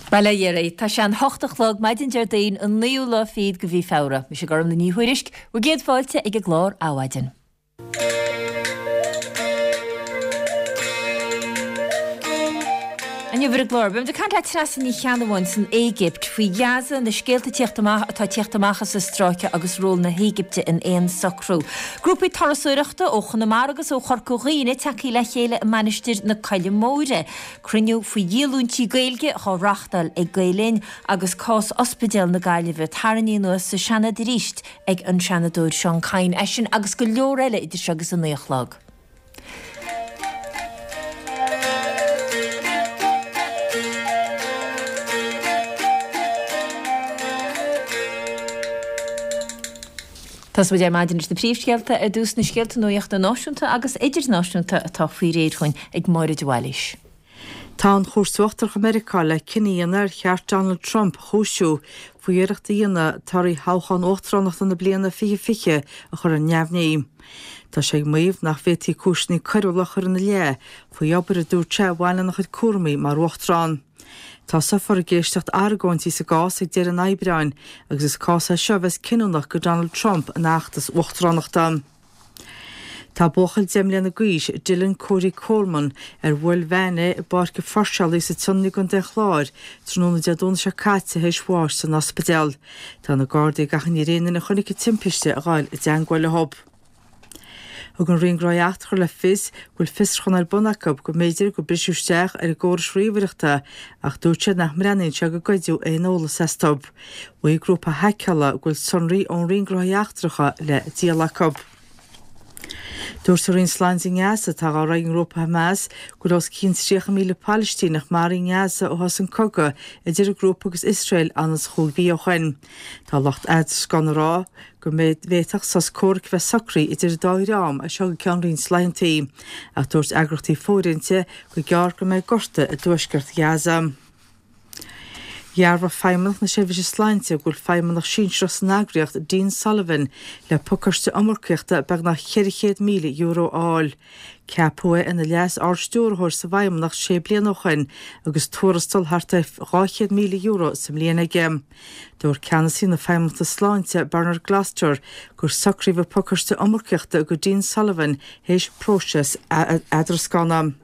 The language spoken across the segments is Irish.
Bail ó Dhia oraibh. Tá sé an hocht a chlog, maidin Déardaoin, an naoú lá fichead de mhí Feabhra. Mise Gormlaith Ní Thuairisg, bhur gcéad fáilte ag an gclár Adhmhaidin. Inniu ar an gclár, beimid ag caint le Treasa Ní Cheannabháin san Éigipt faoi Ghaza, na scéalta ag tíocht amach atá ag tíocht amach as an stráice agus ról na hÉigipte in aon socrú. Grúpaí turasóireachta ó Chonamara agus ó Chorca Dhuibhne tagtha le chéile i Mainistir na Coille Móire. Cruinniú faoi dhíolúintí Gaeilge dhá reáchtáil ag Gael Linn agus cás Ospidéal na Gaillimhe tarraingthe anuas sa Seanad arís ag an Seanadóir Seán Kyne. É sin agus go leor eile idir seo agus a 9 a chlog. Tosóidh muid ar maidin leis na príomhscéalta ar dtús, na scéalta nuachta náisiúnta agus idirnáisiúnta atá faoi réir chugainn ag Máire de Bhailís. Tá an Chúirt Uachtarach i Meiriceá le cinneadh a dhéanamh ar cheart Donald Trump a chúisiú faoi iarracht a dhéanamh torthaí thoghchán uachtaránachta na bliana 2020 a chur ar neamhní. Tá sé ag maíomh nach bhféadfaí cúiseanna coiriúla a chur ina leith faoi obair a dúirt sé a bhain lena chuid cúraimí mar uachtarán. Tosófar ag éisteacht argóintí sa gcás ag deireadh an Aibreáin agus is cás é seo a bheas cinniúnach do Donald Trump ina fheachtas uachtaránachta. Tá buachaill 10 mbliana d'aois, Dylan Cody Coleman, ar bhuail veain é i bPáirc an Pháirceálaí sa tSionainn i gContae an Chláir tráthnóna Dé Domhnaigh seo caite théis bháis san ospidéal. Tá na Gardaí ag achainí ar aon duine a chonaic an timpiste a ghabháil i dteangmháil leo. Thug an Roinn Gnóthaí Eachtracha le fios go bhfuil fiosrúchán ar bun acu go mb'fhéidir gur briseadh isteach ar a gcórais ríomhaireachta ach dúirt siad nach mbreathnaíonn sé go goideadh aon eolas astu. Mhaígh grúpa haiceála go bhfuil sonraí ón Roinn Gnóthaí Eachtracha le díol acu. Dúirt an Roinn Sláinte i nGaza, atá á rith ag an ngrúpa Hamas, go bhfuil os cionn 30,000 Palaistíneach maraithe i nGaza ó thosaigh an cogadh idir an grúpa agus Iosrael anonn is chúig mhí ó shin. Tá lucht eadrascána ag rá go bhféadfadh sos comhraic a bheith socraithe idir an dá dhream as seo go ceann roinnt laethanta, ach dúirt eagraíochtaí fóirithinte gur gearr go mbeidh gorta i dtuaisceart Ghaza. Dhearbhaigh Feidhmeannacht na Seirbhíse Sláinte go bhfuil feidhmeannach sinsearach san eagraíocht, Dean Sullivan, le pacáiste iomarcaíochta beagnach €400,000 a fháil. Ceapadh é ina Leas-Ard-Stiúrthóir sa bhFeidhmeannacht sé bliana ó shin agus tuarastal thart ar €200,000 sa mbliain aige. Dúirt ceannasaí na Feidhmeannachta Sláinte, Bernard Gloster, gur socraíodh an pacáiste iomarcaíochta do Dean Sullivan théis próiseas eadrascána.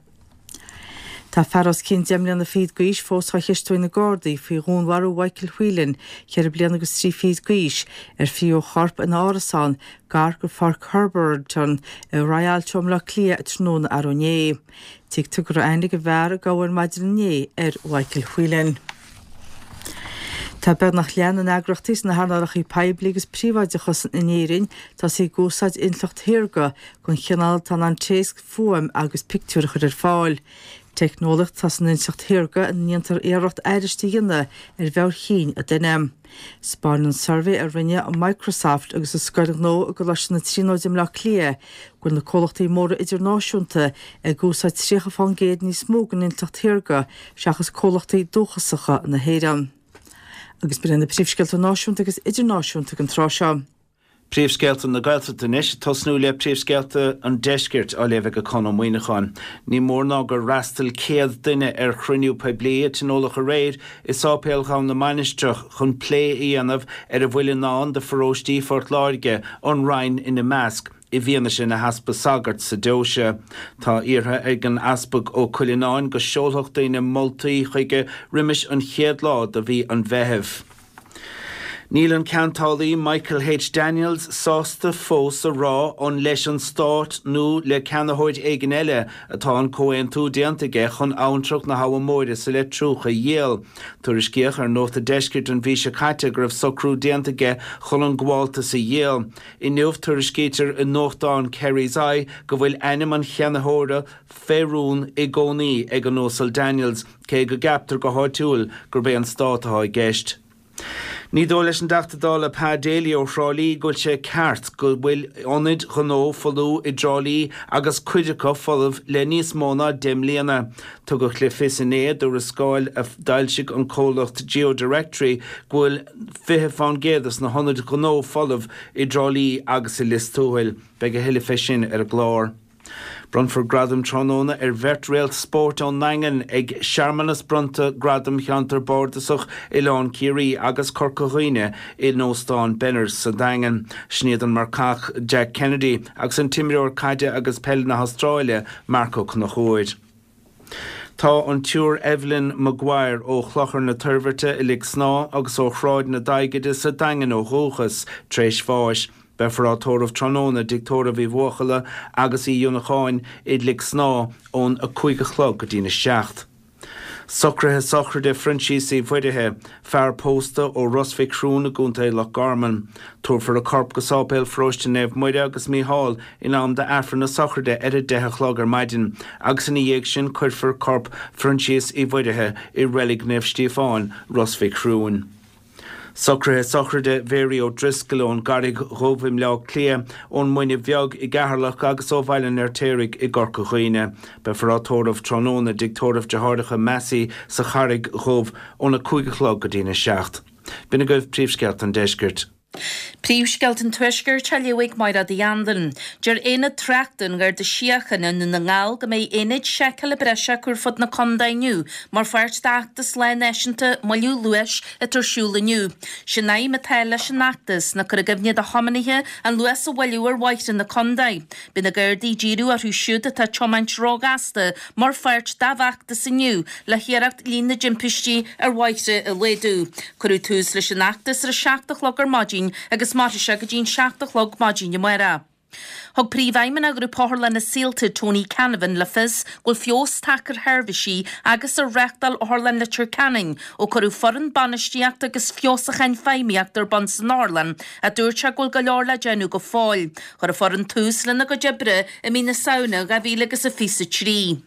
Tá fear os cionn 10 mbliana fichead d'aois fós á cheistiú ag na Gardaí faoi dhúnmharú Mhichael Whelan, 4 bliana agus 3 fichid d'aois, ar fríothadh a chorp ina árasán gar do Pháirc Herberton i Rialto i mBleá Cliath tráthnóna arú inné. Tuigtear go raibh aithne ag an bhfear a gabhadh ar maidin inné ar Mhichael Whelan. Tá beagnach leath na n-eagraíochtaí sna hearnálacha poiblí agus príobháideacha in Éirinn tosaithe ag úsáid intleacht shaorga den chineál atá in ann téacs, fuaim agus pictiúir a chur ar fáil. Teicneolaíocht atá san intleacht shaorga ina ndéantar iarracht aithris a dhéanamh ar mheabhair chinn an duine. 'Spáineann suirbhé a rinne Microsoft agus an Scoil Ghnó i gColáiste na Tríonóide i mBleá Cliath go bhfuil na comhlachtaí móra idirnáisiúnta ag úsáid 30 fán gcéad níos mó den intleacht shaorga seachas comhlachtaí dúchasacha na hÉireann. Agus b'in iad na príomhscéalta náisiúnta agus idirnáisiúnta ag an tráth seo. Príomhscéalta na Gaeltachta anois, ag tosnú le príomhscéalta an Deiscirt á léamh ag Conn Ó Muíneacháin. Ní mór ná gur fhreastail 100 duine ar chruinniú poiblí a tionóladh aréir i Sáipéal Dhomhan na Mainistreach chun plé a dhéanamh ar a bhfuil i ndán do pharóistí Phort Láirge, an Rinn ina measc. i bhfianaise na heaspa sagart sa deoise. Tá iarrtha ag an Easpag Ó Cuileanáin go seolfadh daoine moltaí chuige roimis an chéad lá de mhí an Mheithimh. Níl an ceantálaí Michael H. Daniels sásta fós a rá an leis an Stát nó le ceannaitheoir éigin eile atá an comhaontú déanta aige chun abhantrach na hAbha Móire sa Leitriúch a dhíol. Tuairiscíodh ar Nuacht an Deiscirt an mhí seo caite go raibh socrú déanta aige chun an gabháltas a dhíol. Inniu, tuairiscítear i nuachtán Kerry's Eye go bhfuil ainm an cheannaitheora fé rún i gcónaí ag an Uasal Daniels, cé go gceaptar go háitiúil gurb é an Stát atá i gceist. Ní dóigh leis an dTeachta Dála Pa Daly ó Thrá Lí go bhfuil sé ceart go bhfuil ionaid ghnó folmha i dTrá Lí agus cuid acu folamh le níos mó ná 10 mbliana. Tugadh le fios inné i dtuarascáil a d'fhoilsigh an comhlacht GeoDirectory go bhfuil 20 fán gcéad de na hionaid ghnó folamh i dTrá Lí agus i Lios Tuathail. Beidh a thuilleadh fé sin ar an gclár. Bronnfar gradam tráthnóna ar bheirt réalt spóirt ón nDaingean ag searmanas bronnta Gradam Cheantar Bardasach Oileán Ciarraí agus Corca Dhuibhne in Óstán Benners sa Daingean. Sin iad an marcach Jack Kennedy agus an t-imreoir caide agus peile na hAstráile Marc Ó Conchúir. Tá an tSiúr Evelyn Maguire ó Chlochar na Toirbhirte i Lic Snámha agus ó Shráid na Daighide sa Daingean ó dhúchas, tar éis bháis. Beifear á tórramh tráthnóna i dTigh Tórraimh Uí Bhuachalla agus Uí Fhionnacháin i Lic Snámha ón 5 a chlog go dtína 7. Socruithe sochraide Phroinsias Uí Mhuirithe, fear pósta ó Ros Mhic Thriúin i gContae Loch Garman. Tabharfar a corp go Sáipéal Pharóiste Naomh Muire agus Mícheál in am d'Aifreann na sochraide ar a deich a chlog ar maidin agus ina dhiaidh sin cuirfear corp Phroinsias Uí Mhuirithe i Reilig Naomh Stíofáin, Ros Mhic Thriúin. Socruithe sochraide Mhary O'Driscoll ón gCarraig Dhubh i mBleá Cliath, ón Muine Bheag i gCeatharlach agus ó Bhaile an Fheirtéaraigh i gCorca Dhuibhne. Beifear á tórramh tráthnóna i dTigh Tórraimh Deartháireacha Massey sa Charraig Dhubh óna 5 a chlog go dtína 7. B'in agaibh príomhscéalta an deiscirt. Príomhscéalta an Tuaiscirt á léamh ag Mairéad Uí Anluain. Deir Aonad Tráchta an Gharda Síochána i nDún na nGall go mbeidh aonaid seiceála breise acu ar fud na contae inniu mar pháirt d'fheachtas Lá Náisiúnta Moilliú Luais atá ar siúl inniu. Sé'n aidhm atá leis an fheachtas ná cur i gcuimhne do thiománaithe an luas a mhoilliú ar bhóithre na contae. Beidh na Gardaí ag díriú orthu siúd atá ag tiomáint róghasta mar pháirt dá bhfeachtas inniu le hiarracht líon na dtimpistí ar bhóithre a laghdú. Cuireadh tús leis an fheachtas ar a 7 a chlog ar maidin agus mairfidh sé go dtí'n 7 a chlog maidin amárach. Thug Príomhfheidhmeannach Ghrúpa Otharlanna Saolta, Tony Canavan, le fios go bhfuil feabhas tagtha ar sheirbhísí agus ar reáchtáil Otharlann Leitir Ceanainn ó cuireadh foireann bainistíochta agus feabhsúcháin feidhmíochta ar bun san otharlann ach dúirt sé go bhfuil go leor le déanamh go fóill. Chuir an foireann tús lena gcuid oibre i mí na Samhna 2023.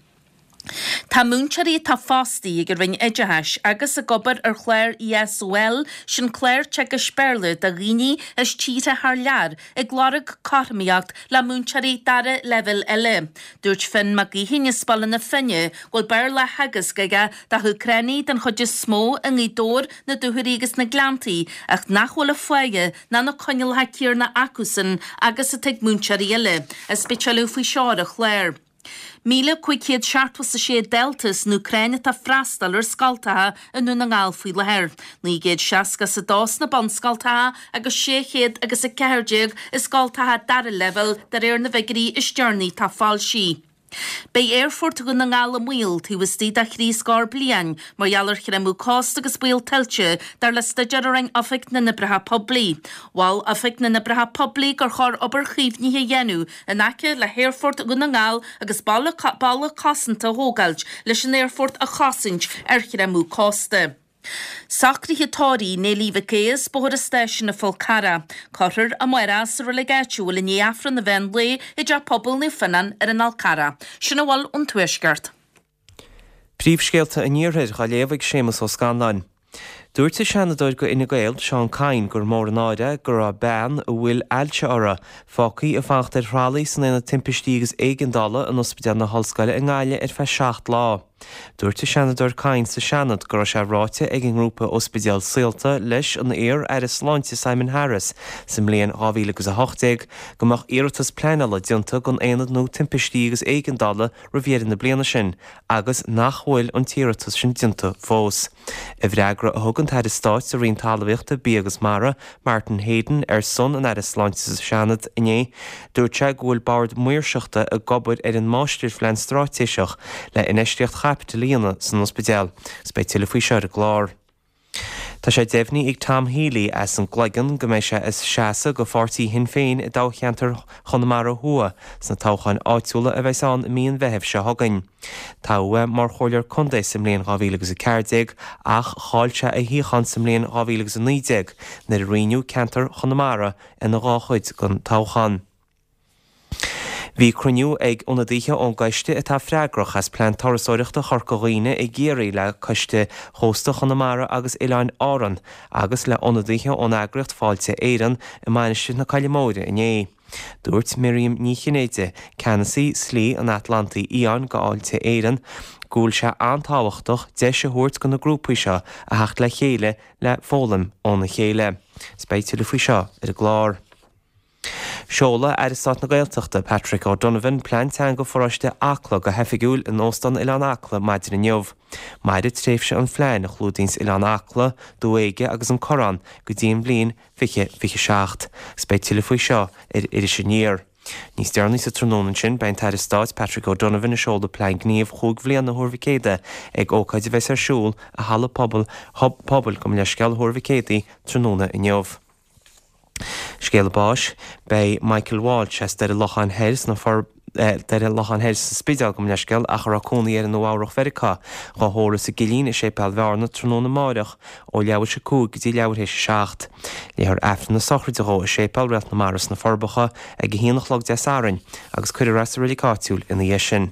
Tá múinteoirí atá fostaithe ag an Roinn Oideachais agus ag obair ar chlár ESOL, sin clár teagaisc Béarla do dhaoine as tíortha thar lear, ag lorg cothromaíocht le múinteoirí dara leibhéal eile. Dúirt Finn Mac Gaoithín as Baile na Finne go bhfuil Béarla á theagasc aige do hÚcránaigh den chuid is mó i nGaoth Dobhair, na Dúchoraidh agus na Gleanntaí ach nach bhfuil an pháighe ná na coinníollacha céarna acusan agus atá ag múinteoirí eile. Is beidh tuilleadh faoi seo ar an chlár. 1,576 dalta as an Úcráin atá ag freastal ar scoltacha i nDún na nGall faoi láthair, 962 sna bunscoltacha agus 614 i scoltacha dara leibhéal de réir na bhfigiúirí is deireanaí atá foilsithe. Beidh Aerfort Dhún na nGall i mbaol taobh istigh de thrí scór bliain mar gheall ar chreimeadh cósta agus baol tuilte, dar le staidéar a rinne Oifig na nOibreacha Poiblí. Mhol Oifig na nOibreacha Poiblí gur chóir obair chaomhnaithe a dhéanamh in aice le hAerfort Dhún na nGall agus balla cosanta a thógáilt leis an aerfort a chosaint ar chreimeadh cósta. Socruithe tórraimh Néilí Mhic Aodha as Bóthar an Stáisiúin an Fhál Carrach. Cuirfear amárach sa reilig áitiúil i ndiaidh Aifreann an mheán lae i dTeach Pobail Naomh Fionnán ar an Fhál Carrach. Sin a bhfuil ón Tuaisceart. Príomhscéalta an Iarthair á léamh ag Séamus Ó Scanláin. Dúirt an Seanadóir do Fhine Gael, Seán Kyne, gur mór an náire é go raibh bean a bhfuil ailse uirthi, fágtha ag fanacht ar thralaí san Aonad Timpistí agus Éigeandála in Ospidéal na hOllscoile i nGaillimh ar feadh 7 lá. Dúirt an Seanadóir Kyne sa Seanad go raibh sé ráite ag an ngrúpa Ospidéal Saolta leis an iar-Aire Sláinte Simon Harris sa mbliain 2018 go mbeadh iarratas pleanála déanta don aonad nua timpistí agus éigeandála roimh dheireadh na bliana sin agus nach bhfuil an t-iarratas sin déanta fós. I bhfreagra a thug an tAire Stáit sa Roinn Talmhaíochta, Bia agus Mara, Martin Heydon, ar son an Aire Sláinte sa Seanad inné, dúirt sé go bhfuil Bord Maoirseachta ag obair ar an Máistirphlean Straitéiseach le infheistíocht chaipitil a dhéanamh san ospidéal. Agus beidh tuilleadh faoi seo ar an gclár. Tá sé deimhnithe ag Tom Healy as an gCloigeann go mbeidh sé ag seasamh do pháirtí Shinn Féin i dtoghcheantar Chonamara Thuaidh sna toghcháin áitiúla a bheas ann i mí an Mheithimh seo chugainn. Toghadh é mar chomhairleoir contae sa mbliain 2014 ach chaill sé a shuíochán sa mbliain 2019 nuair a roinneadh ceantar Chonamara ina dhá chuid don toghchán. Bhí cruinniú ag ionadaithe ón gcoiste atá freagrach as Plean Turasóireachta Chorca Dhuibhne i gCiarraí le Coiste Chósta Chonamara agus Oileáin Árann agus le hionadaithe ón eagraíocht Fáilte Éireann i Mainistir na Coille Móire inné. Dúirt Miriam Ní Chinnéide, ceannasaí Slí an Atlantaigh Fhiáin do Fháilte Éireann, go bhfuil sé an-tábhachtach deis a thabhairt do na grúpaí seo a theacht le chéile le foghlaim óna chéile. Is beidh tuilleadh faoi seo ar an gclár. Seolfaidh Aire Stáit na Gaeltachta, Patrick O'Donovan, Plean Teanga Pharóiste Acla go hoifigiúil in Óstán Oileán Acla maidin inniu. Mairfidh tréimhse an phlean, a chlúdaíonns Oileán Acla, Dumha Éige agus an Corrán, go dtí an bhliain 2027, agus beidh tuilleadh faoi seo ar Iris Aniar. Níos deireanaí sa tráthnóna ansin, beidh an tAire Stáit Patrick O'Donovan ag seoladh Plean Gníomh chúig bhliana Thuar Mhic Éadaigh ag ócáid a bheas ar siúl i Halla Pobail, Pobail, gabh mo leithscéal, Thuar Mhic Éadaigh tráthnóna inniu. Scéala báis, Beidh Michael Walsh as Doire Locháin Thoir sna Doire Locháin Thoir sa Spidéal, gabh mo leithscéal, ach a raibh cónaí air i Nua Eabhrach Mheiriceá, dhá thórramh sa gCillín i Séipéal Bhearna tráthnóna amáireach ó leathuair théis 5 go dtí leathuair théis 7. Léifear Aifreann na sochraide dhó i Séipéal Réalt na Mara sna Forbacha ag 1 a chlog Dé Sathairn agus cuirfear é sa reilig áitiúil ina dhiaidh sin.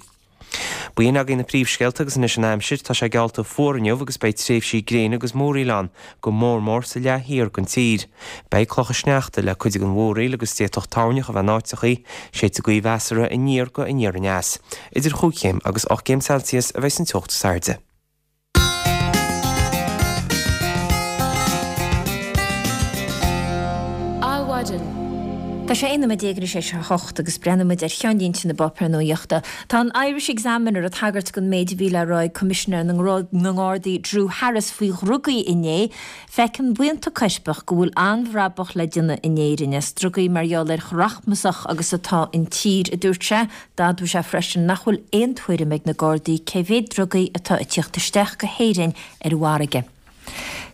B'in agaibh na príomhscéalta agus anois an aimsir. Tá sé geallta fuar inniu agus beidh tréimhsí gréine agus múraíl ann, go mór mór sa leath thiar den tír. Beidh clocha sneachta le cuid den mhúraíl agus d'fhéadfadh toirneach a bheith in áiteachaí, séidfidh gaoth mheasartha aniar go aniar aneas. Idir chúig chéim agus 8 gcéim Celsius a bheidh an teocht is airde. Adhmhaidin. Tá sé 11 nóiméad tar éis a 8 agus breathnóidh muid ar cheannlínte na bpáipéar nuachta. Tá an Irish Examiner ag tagairt don méid a bhí le rá ag Coimisinéir na nGardaí Drew Harris faoi dhrugaí inné. Feiceann buíonta coirpeach go bhfuil an-bhrabach le déanamh in Éirinn as drugaí mar gheall ar chomh rachmasach agus atá an tír, a dúirt sé. D'admhaigh sé freisin nach bhfuil aon tuairim ag na Gardaí cé mhéad drugaí atá ag tíocht isteach go hÉirinn ar an bhfarraige.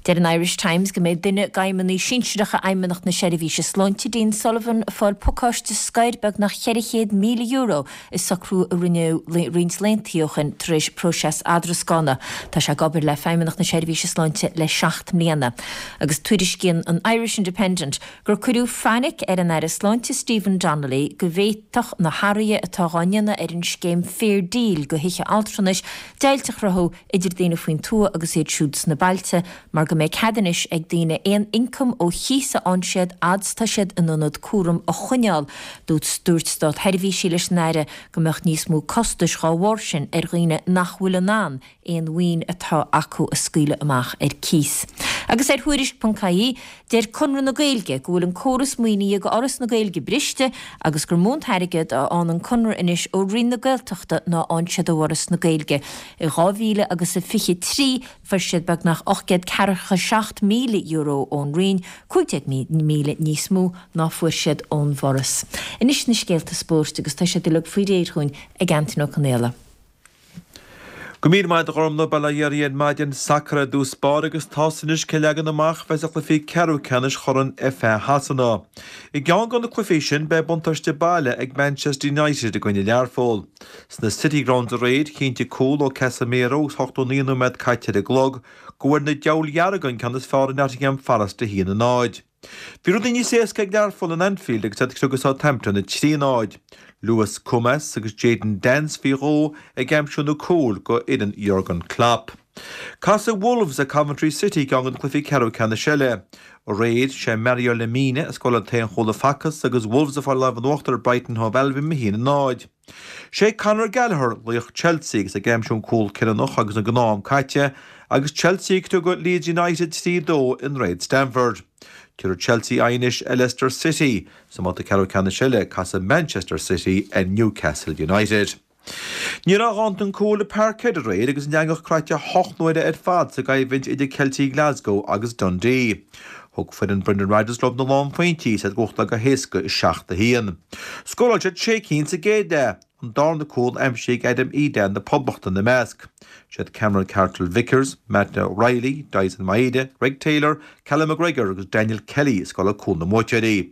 Deir an Irish Times go mbeidh duine d'fheidhmeannaigh sinsearacha Fheidhmeannacht na Seirbhíse Sláinte, Dean Sullivan, ag fáil pacáiste scoir beagnach €400,000 i socrú a rinneadh roinnt laethanta ó shin tar éis próiseas eadrascána. Tá sé ag obair le Feidhmeannacht na Seirbhíse Sláinte le seacht mbliana. Agus tuairiscíonn an Irish Independent gur cuireadh fainic ar an Aire Sláinte Stephen Donnelly go bhféadfadh na hathruithe atá dhá ndéanamh ar an scéim Fair Deal do thithe altranais deighilt a chruthú idir daoine faoin tuath agus iad siúd sna bailte mar go mbeidh cead anois ag daoine aon ioncam ó chíos a fhaigheann siad fhad 's tá siad in ionad cúraim a choinneáil. Dúirt státseirbhísigh leis an Aire go mbeadh níos mó costais dhá bharr sin ar dhaoine nach bhfuil in ann aon mhaoin atá acu a scaoileadh amach ar cíos. Agus ar Thuairisc.ie, deir Conradh na Gaeilge go bhfuil an córas maoinithe do Fhoras na Gaeilge briste agus gur mó an t-airgead a fhaigheann an Conradh anois ó Roinn na Gaeltachta ná a fhaigheann siad ó Fhoras na Gaeilge. I 2023 fuair siad beagnach €847,000 ón Roinn, 15,000 níos mó ná fuair siad ón bhForas. Anois na scéalta spóirt agus tá siad uilig faoi réir dhúinn ag Antain Ó Conaola. Go raibh míle maith agat a Ghormfhlaith, bail ó Dhia oraibh ar maidin, sacar ar dtús báire agus tá's anois cén leagan amach a bheas ar chluichí ceathrú ceannais Chorn FA Shasana. I gceann de na cluichí sin beidh buntáiste baile ag Manchester United i gcoinne Learpholl. Sna City Grounds aréir, chinntigh cúl ó Casemiro agus 89 nóiméad caite ar an gclog go bhfuair na Diabhail Dhearga an ceann is fearr ar Nottingham Forest 1-0. Bhí rudaí níos éasca ag Learpholl in Anfield agus iad ag criogadh Southampton 3-0. Lewis Koumas agus Jayden Danns faoi dhó ag aimsiú na cúil go fhoireann Jurgen Klopp. Casfaidh Wolves ar Coventry City i gceann de na cluichí ceathrú ceannais eile. Aréir, sé Mario Lemina a scóráil an t-aon chúl a facthas agus Wolves ag fáil lámh in uachtar ar Brighton Hove Albion 1-0. Sé Conor Gallagher laoch Chelsea agus é ag aimsiú an cúl cinniúnach agus an gnáth-am caite agus Chelsea ag criogadh Leeds United 3-2 i nDroichead Stamford. Tabharfaidh Chelsea aghaidh anois ar Leicester City. Sa mbabhta ceathrú ceannais eile casfaidh Manchester City ar Newcastle United. Ní raibh a dhóthain cúil i Parkhead aréir agus an eangach croite hocht n-uaire ar fad sa gcoimhlint idir Ceiltigh Glasgow agus Dundee. Thug foireann Brendan Rodgers leo na lánphointí is iad ag buachtáil go héasca 7-1. Scóráil siad sé cinn sa gcéad leath, an darna cúl aimsithe ag Adam Idah na Poblachta ina measc. Siad Cameron Carter-Vickers, Matt O'Riley, Daizen Maeda, Greg Taylor, Callum McGregor agus Daniel Kelly a scóráil cúil na mbuaiteoirí.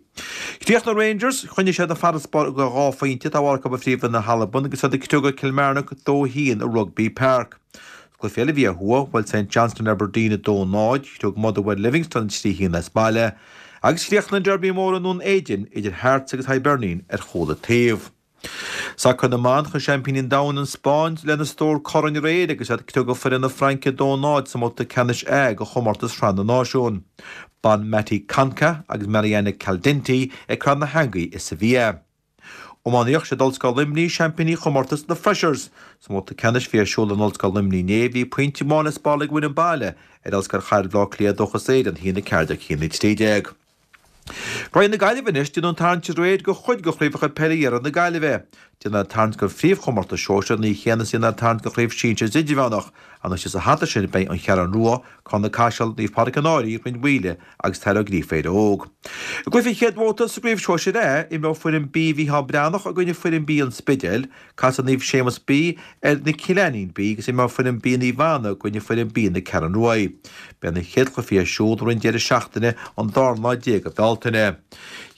Chríochnaigh Rangers, choinnigh siad an farasbarr de dhá phointe atá acu ar Phríomh-Roinn na hAlban agus iad ag criogadh Kilmarnock 2-1 i Rugby Park. Cluiche eile a bhí ó thuaidh, bhuail St Johnstone Aberdeen 2-0, chriog Motherwell Livingston 3-1 as baile, agus chríochnaigh an Derby mór i nDún Éideann idir Hearts agus Hibernian ar chúl an taobh. Sacar na mban, Chuaigh seaimpíní an domhain, an Spáinn, lena stór corn aréir agus iad ag criogadh foireann na Fraince 2-0 sa mbabhta ceannais A de chomórtas Shraith na Náisiún. Bonmati Conca agus Mariana Caldentey ag cur na heangaí i Sevilla. Iománaíocht, Siad Ollscoil Luimnigh seaimpíní chomórtas na Freshers. Sa mbabhta ceannais a bhí ar siúl in Ollscoil Luimnigh inné, bhí pointe amháin le spáráil ag an bhfoireann baile ar Ollscoil Chathair Bhaile Átha Cliath Dúchas Éireann, 1-14, 1-13. Roinn na Gaillimhe anois, déanadh an tarraingt aréir do chuid de chraobhacha peile iarthar na Gaillimhe. Déanadh an tarraingt don phríomhchomórtas sóisir an oíche chéanna is a déanadh an tarraingt do chraobh sinsir is idirmheánach. Anois sa hata sin beidh An Cheathrú Rua, Carna Caiseal, Naomh Pádraig an Fhairche, Rinn Mhaoile agus Taire Ó Gríofa Éire Óg. I gcluiche an chéad bhabhta sa gcraobh sóisir A, imreoidh foireann B Mhícheál Breathnach i gcoinne foireann B an Spidéil. Casfaidh Naomh Séamus B ar Na Cillíní B agus imreoidh foireann B Naomh Anna i gcoinne foireann B na Ceathrún Ruaidh. Beidh na chéad chluichí ar siúl roimh an deireadh seachtaine an dara lá déag de Bhealtaine.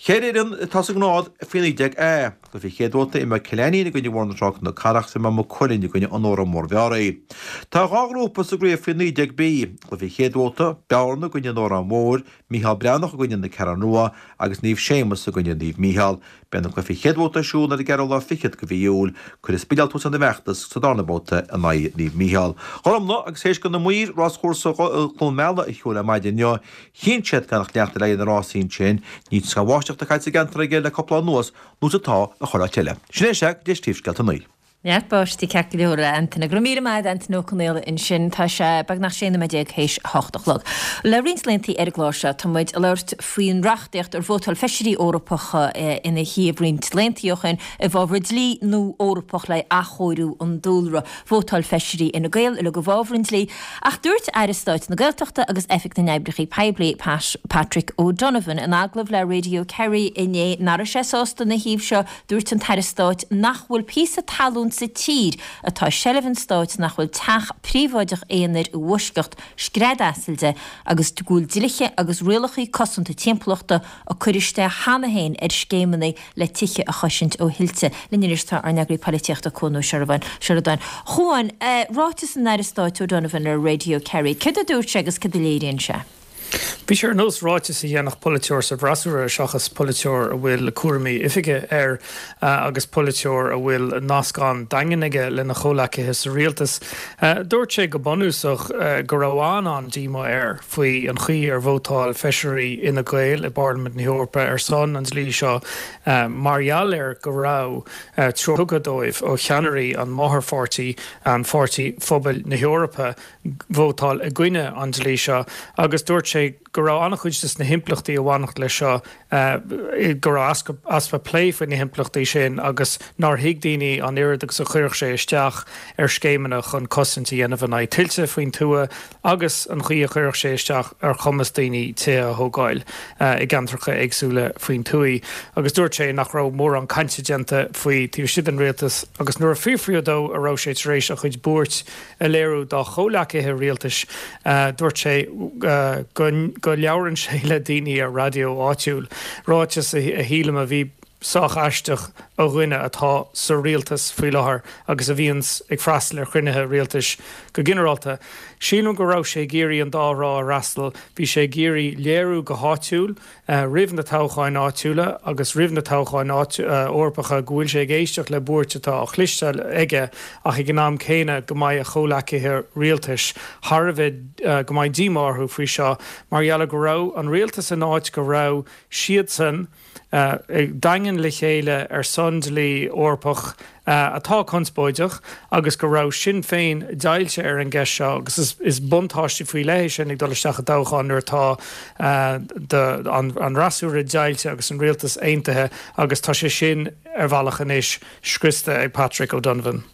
Cheithre fhoireann atá sa ngrád faoi 19 A. Cluiche an chéad bhabhta imreoidh Cill Ainnín i gcoinne Bhóthar na Trá Cnoc Carrach is imreoidh Maigh Cuilinn i gcoinne An Órainn Mhór-Mheáraí. Tá dhá ghrúpa sa gcraobh faoi 19 B. Cluiche an chéad bhabhta, Bearna i gcoinne An Óráin Mhóir, Mícheál Breathnach i gcoinne Na Ceathrún Rua agus Naomh Séamus i gcoinne Naomh Mícheál. Beidh na cluichí chéad bhabhta ar siúl ar an gceathrú lá fichead de mhí Iúil. Cuirfidh Spidéal tús lena bhfeachtas sa darna babhta in aghaidh Naomh Mícheál. Ghormfhlaith agus théis do na maoir ráschúrsa Chluain Meala a shiúl ar maidin inniu, chinn siad gan ach leanacht ar aghaidh na rásaí ansin. Níl scamall bháisteach caite sa gceantar aige le cúpla lá anuas nó is atá i chuile áit eile. Sin é sea go dtí príomhscéalta a naoi. Neart báistí ceart go leor, a Antaine. Go raibh míle maith agat, Antaine Ó Conaola ansin. Tá sé beagnach 16 nóiméad théis a hocht a chlog. Le roinnt laethanta ar an gclár seo tá muid ag labhairt faoin reachtaíocht ar vótáil feisirí Eorpacha ina thaobh roinnt laethanta ó shin i bhfabhar dlí nua Eorpach le athchóiriú an dúlra. Vótáil feisirí Fhine Gael uilig i bhfabhar an dlí ach dúirt Aire Stáit na Gaeltachta agus Oifig na nOibreacha Poiblí, Pat Patrick O'Donovan in agallamh le Radio Kerry inné nach raibh sé sásta ina thaobh seo Dúirt an tAire Stáit nach bhfuil píosa talún sa tír atá i seilbh an stáit nach bhfuil teach príobháideach aonair i bhfoisceacht scread asail de agus go bhfuil dlíthe agus rialacha cosanta timpeallachta á gcur isteach cheana féin ar scéimeanna le tithe a chosaint ó thuilte. Linn anois tá ár n-eagraí polaitíochta Cuan Ó Seireadáin. A Chuain, ráiteas an Aire Stáit O'Donovan ar Radio Kerry, céard a dúirt sé agus céard a léiríonn sé? Bhí sé ar nós ráiteas a dhéanfadh polaiteoir sa bhfreasúra seachas polaiteoir a bhfuil cúraimí oifige air agus polaiteoir a bhfuil nasc an-daingean aige lena chomhleacaithe sa rialtas. Dúirt sé go bunúsach go raibh an-an-díomá air faoi an chaoi ar vótáil feisirí Fhine Gael i bParlaimint na hEorpa ar son an dlí seo mar gheall ar go raibh treoir tugtha dóibh ó cheannairí an máthairpháirtí, an Pháirtí Phobail na hEorpa, vótáil i gcoinne an dlí seo agus dúirt sé go raibh an-chuid de na himpleachtaí a bhainfeadh leis seo, go raibh easpa plé faoi na himpleachtaí sin agus nár thuig daoine an oiread agus a chuirfeadh sé isteach ar scéimeanna chun cosaint a dhéanamh in aghaidh tuilte faoin tuath agus an chaoi a chuirfeadh sé isteach ar chumas daoine tithe a thógáil i gceantracha éagsúla faoin tuath. Agus dúirt sé nach raibh mórán cainte déanta faoi taobh istigh den rialtas agus nuair a fiafraíodh dó an raibh sé tar éis a chuid buairt a léiriú dá chomhleacaithe rialtais, dúirt sé go labhrann sé le daoine ar raidió áitiúil, ráiteas a shílim a bhí sách aisteach ó dhuine atá sa rialtas faoi láthair agus a bhíonns ag freastal ar chruinnithe rialtais go ginearálta. Sílim go raibh sé ag iarraidh an dá thrá a fhreastal, bhí sé ag iarraidh léiriú go háitiúil, roimh na toghcháin áitiúla agus roimh na toghcháin Eorpacha go bhfuil sé ag éisteacht le buairt atá á chloisteáil aige ach ag an am céanna go mbeidh a chomhleacaithe rialtais thar a bheith, go mbeidh díomá orthu faoi seo mar gheall ar go raibh an rialtas in áit go raibh siadsan daingean le chéile ar son dlí Eorpach atá conspóideach agus go raibh Sinn Féin deighilte ar an gceist seo agus is buntáiste faoi leith é sin ag dul isteach i dtoghchán nuair atá an fhreasúra deighilte agus an rialtas aontaithe agus tá sé sin ar bhealach anois scriosta ag Patrick O'Donovan.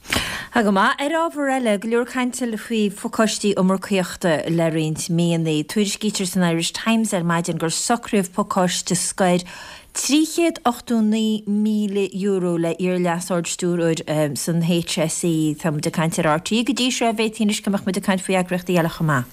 Tá go maith. Ar ábhar eile, go leor cainte faoi phacáistí iomarcaíochta le roinnt míonna. Tuairiscítear san Irish Times ar maidin gur socraíodh pacáiste scoir €389,000 le iar-Leas-Ard-Stiúrthóir san HSE. Tá muid ag caint ar RTÉ go dtí seo, b'fhéadfaí anois go mbeadh muid ag caint faoi eagraíochtaí eile chomh maith.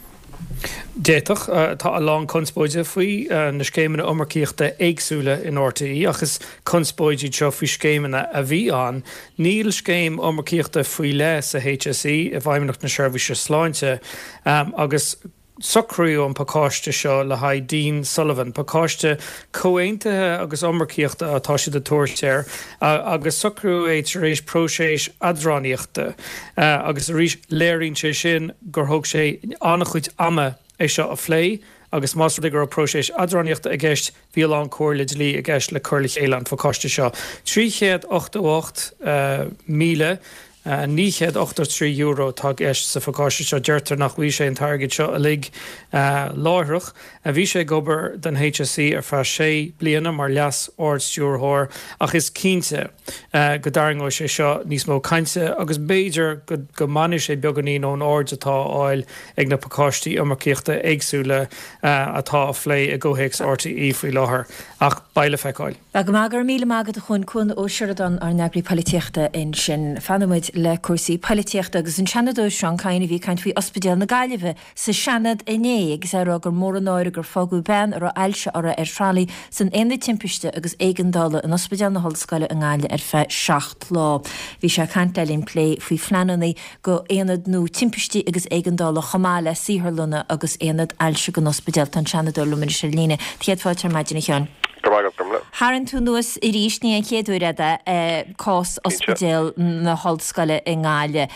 D'fhéadfadh. Tá a lán conspóide faoi na scéimeanna iomarcaíochta éagsúla in RTÉ ach is conspóid iad seo faoi scéimeanna a bhí ann. Níl scéim iomarcaíochta faoi leith sa HSE, i bhFeidhmeannacht na Seirbhíse Sláinte, agus Socraíodh an pacáiste seo le haghaidh Dean Sullivan. Pacáiste comhaontaithe agus iomarcaíochta atá siad ag tabhairt air agus socraíodh é tar éis próiseas eadránaíochta. Agus arís, léiríonn sé sin gur thóg sé an-chuid ama é seo a phlé agus más rud é go raibh próiseas eadránaíochta i gceist, Bhí a lán comhairle dlí i gceist le cur le chéile an phacáiste seo. 388,000. €983 atá i gceist sa phacáiste seo. Deirtear nach bhfaighidh sé an t-airgead seo uilig láithreach. Bhí sé ag obair don HSE ar feadh sé bliana mar Leas-Ard-Stiúrthóir ach is cinnte go dtarraingeoidh sé seo níos mó cainte agus b'fhéidir go mbainfidh sé beagáinín ón aird atá á fháil ag na pacáistí iomarcaíochta éagsúla atá á phlé i gcomhthéacs RTÉ faoi láthair. Ach beidh le feiceáil. Go maith, go raibh míle maith agat a Chuain, Cuan Ó Seireadáin, ár n-eagraí poilitíochta ansin. Fanfaidh muid le cúrsaí poilitíochta agus an Seanadóir Seán Kyne a bhí ag caint faoi Ospidéal na Gaillimhe sa Seanad inné agus é ag rá gur mór an náire gur fágadh bean a raibh ailse uirthi ar tralaí san Aonad Timpiste agus Éigeandála in Ospidéal na hOllscoile i nGaillimh ar feadh 7 lá. Bhí sé ag caint le linn plé faoi phleananna go aonad nua timpistí agus éigeandála chomh maith le saotharlanna agus aonad ailse don ospidéal. Tá an Seanadóir liom anois ar líne. Céad fáilte ar maidin a Sheáin. Go raibh maith agat, Gormlaith. Tharraing tú anuas arís, ní an chéad uair é, cás Ospidéal na hOllscoile i nGaillimh.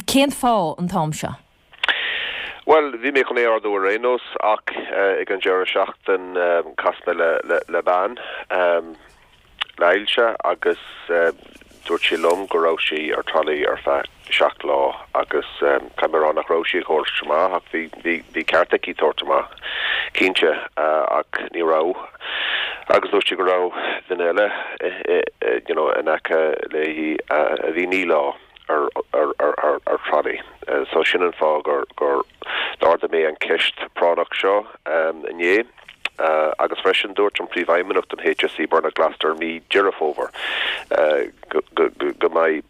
Cén fáth an t-am seo? Bhuel, bhí mé chun é a ardú ar aon nós ach ag an deireadh seachtain chas mé le bean le ailse agus dúirt sí liom go raibh sí ar tralaí ar feadh 7 lá agus caithfidh mé a rá nach raibh sí ag tabhairt amach ach bhí bhí ceart aici tabhairt amach cinnte ach ní raibh agus dúirt sí go raibh duine eile you know in aice léi a bhí 9 lá. ar tralaí. So sin an fáth gur gur d'ardaigh mé an ceist práinneach seo inné. Agus freisin dúirt an Príomhfheidhmeannach don HSE Bernard Gloster mí Deireadh Fómhair go go mbeidh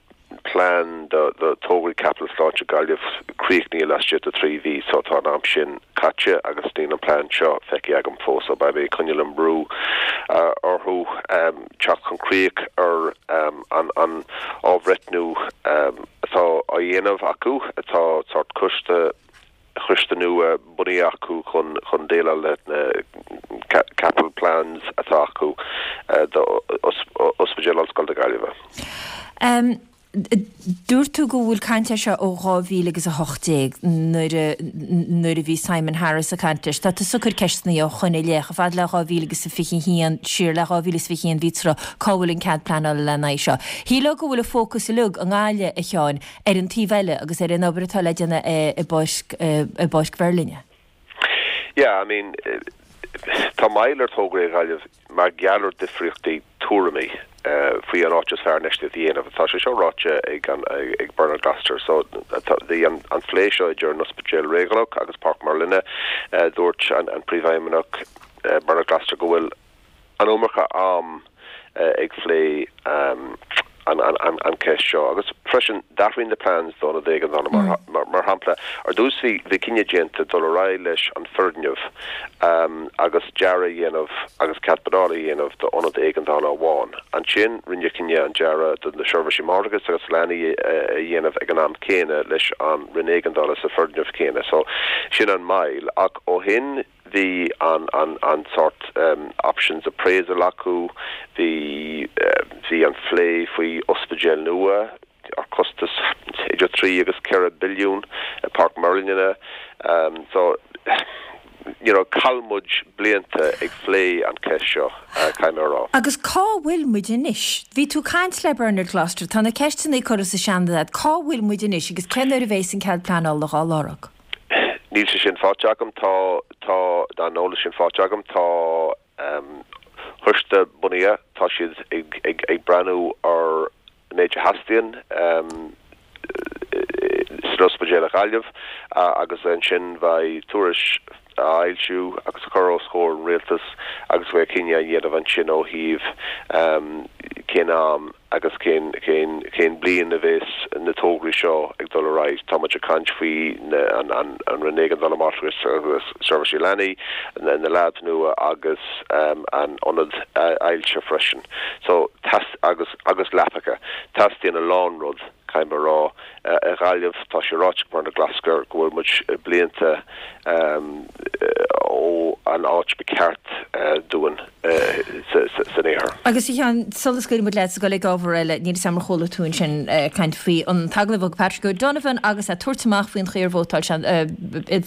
plean do do tograí caipitil sláinte Gaillimh críochnaithe laistigh de 3 mhí. So tá an am sin caite agus níl an plean seo feicthe agam fós. So beidh mé ag coinneáil an brú orthu. teacht chun críoch ar an athbhreithniú atá á dhéanamh acu. Tá sórt coiste choiste nua bunaithe acu chun chun déileáil le na capital plans atá acu do Ospidéal Ollscoile na Gaillimhe. Dúirt tú go bhfuil caint air seo ó 2018 nuair a nuair a bhí Simon Harris ag caint leis. Tá tusa ag cur ceisteanna ó shoin i leith, chomh fada le 2021, siar le 2021 bhí tráth, cá bhfuil an cead pleanála lena aghaidh seo? Shílfeá go bhfuil an fócas uilig i nGaillimh, a Sheáin, ar an taobh eile agus ar an obair atá le déanamh i bPáirc i bPáirc Mheirlinne. Yeah, I mean, tá moill ar tograí i Gaillimh mar gheall ar difríochtaí tuairimí faoi an áit is fearr infheistíocht a dhéanamh. Tá sé seo ráite ag an ag Bernard Gloster. So bhí an an phlé seo idir an Ospidéal Réigiúnach agus Páirc Merlinne. Dúirt an an Príomhfheidhmeannach Bernard Gloster go bhfuil an iomarca am ag phlé an cheist seo. Agus freisin, d'athraigh na plans d'ionad éigeandála. Mar shampla, ar dtús bhí cinneadh déanta dul ar aghaidh leis an foirgneamh agus dearadh a dhéanamh agus cead pleanála a dhéanamh d'ionad éigeandála amháin. Ansin rinneadh cinneadh an dearadh do na seirbhísí máithreachais agus leanaí a dhéanamh ag an am céanna leis an Roinn Éigeandála sa foirgneamh céanna. So, sin an moill. Ach ó shin, Bhí an an an sórt options appraisal acu, bhí bhí an phlé faoi ospidéal nua ar costas idir 3 agus 4 billiún i Páirc Merlinne. So you know chaill muid blianta ag phlé an cheist seo, caithfidh mé a rá. Agus cá bhfuil muid anois? Bhí tú ag caint le Bernard Gloster, tá na ceisteanna curtha sa Seanad agat, cá bhfuil muid anois agus cén uair a bheas an cead pleanála dhá lorg? Níl sé sin faighte agam. Tá, tá an eolas sin faighte agam. Tá coiste bunaithe, tá siad ag, ag, ag breathnú ar an méid a theastaíonn san ospidéal i Gaillimh agus ansin beidh tuairisc á fhoilsiú agus a chur os comhair an Rialtais agus beidh cinneadh á dhéanamh ansin ó thaobh cén am agus cén, cén, cén bliain a bheas na tograí seo ag dul ar aghaidh. Tá muid ag caint faoi na, an, an, an Roinn Éigeandála Máithreachais agus Seirbhísí Leanaí, na, na labs nua agus an ionad ailse freisin. So, teas, agus, agus leapacha. Teastaíonn a lán rud, caithfidh mé a rá. I Gaillimh, tá sé ráite ag Bernard Gloster go bhfuil muid blianta ó an áit ba cheart dúinn san iarthar. Agus a Sheáin, sula scaoilfidh muid leat ag dul ag ábhar eile, níl 'fhios a'm ar chuala tú ansin caint faoi an t-agallamh a thug Patrick O'Donovan agus é ag tabhairt amach faoin chaoi ar vótáil sé,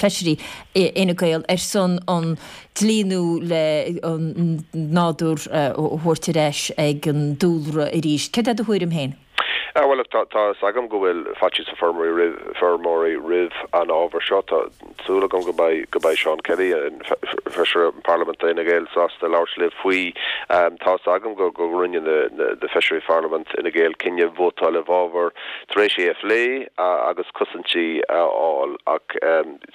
feisirí Fhine Gael ar son an dlí nua le an nádúr a thabhairt ar ais ag an dúlra arís. Céard é do thuairim féin? Bhuel, look, tá tá fhios agam go bhfuil faitíos ar feirmeoirí roimh feirmeoirí roimh an ábhar seo. Tá súil agam go mbeidh go mbeidh Seán Kelly, an Feisire Parlaiminte d'Fhine Gael, sásta labhairt libh faoi. Tá fhios agam go go rinne na na Feisirí Pharlaimint Fhine Gael cinneadh vótáil i bhfabhar tar éis é a phlé agus cosaintí a fháil ach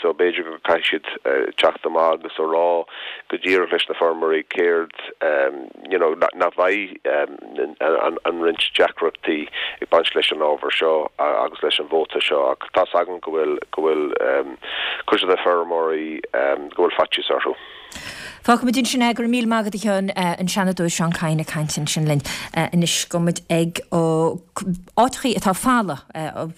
so b'fhéidir go caithfidh siad teacht amach agus a rá go díreach leis na feirmeoirí céard you know nach mbeidh an roinnt deacrachtaí ag baint leis an ábhar seo agus leis an vóta seo ach tá's agam go bhfuil go bhfuil cuid de na feirmeoirí go bhfuil faitíos orthu. Fágfaimid ansin é. Go raibh míle maith agat a Sheáin, an Seanadóir Seán Kyne ag caint ansin linn. Anois gabhfaidh muid ag áiteachaí atá folamh,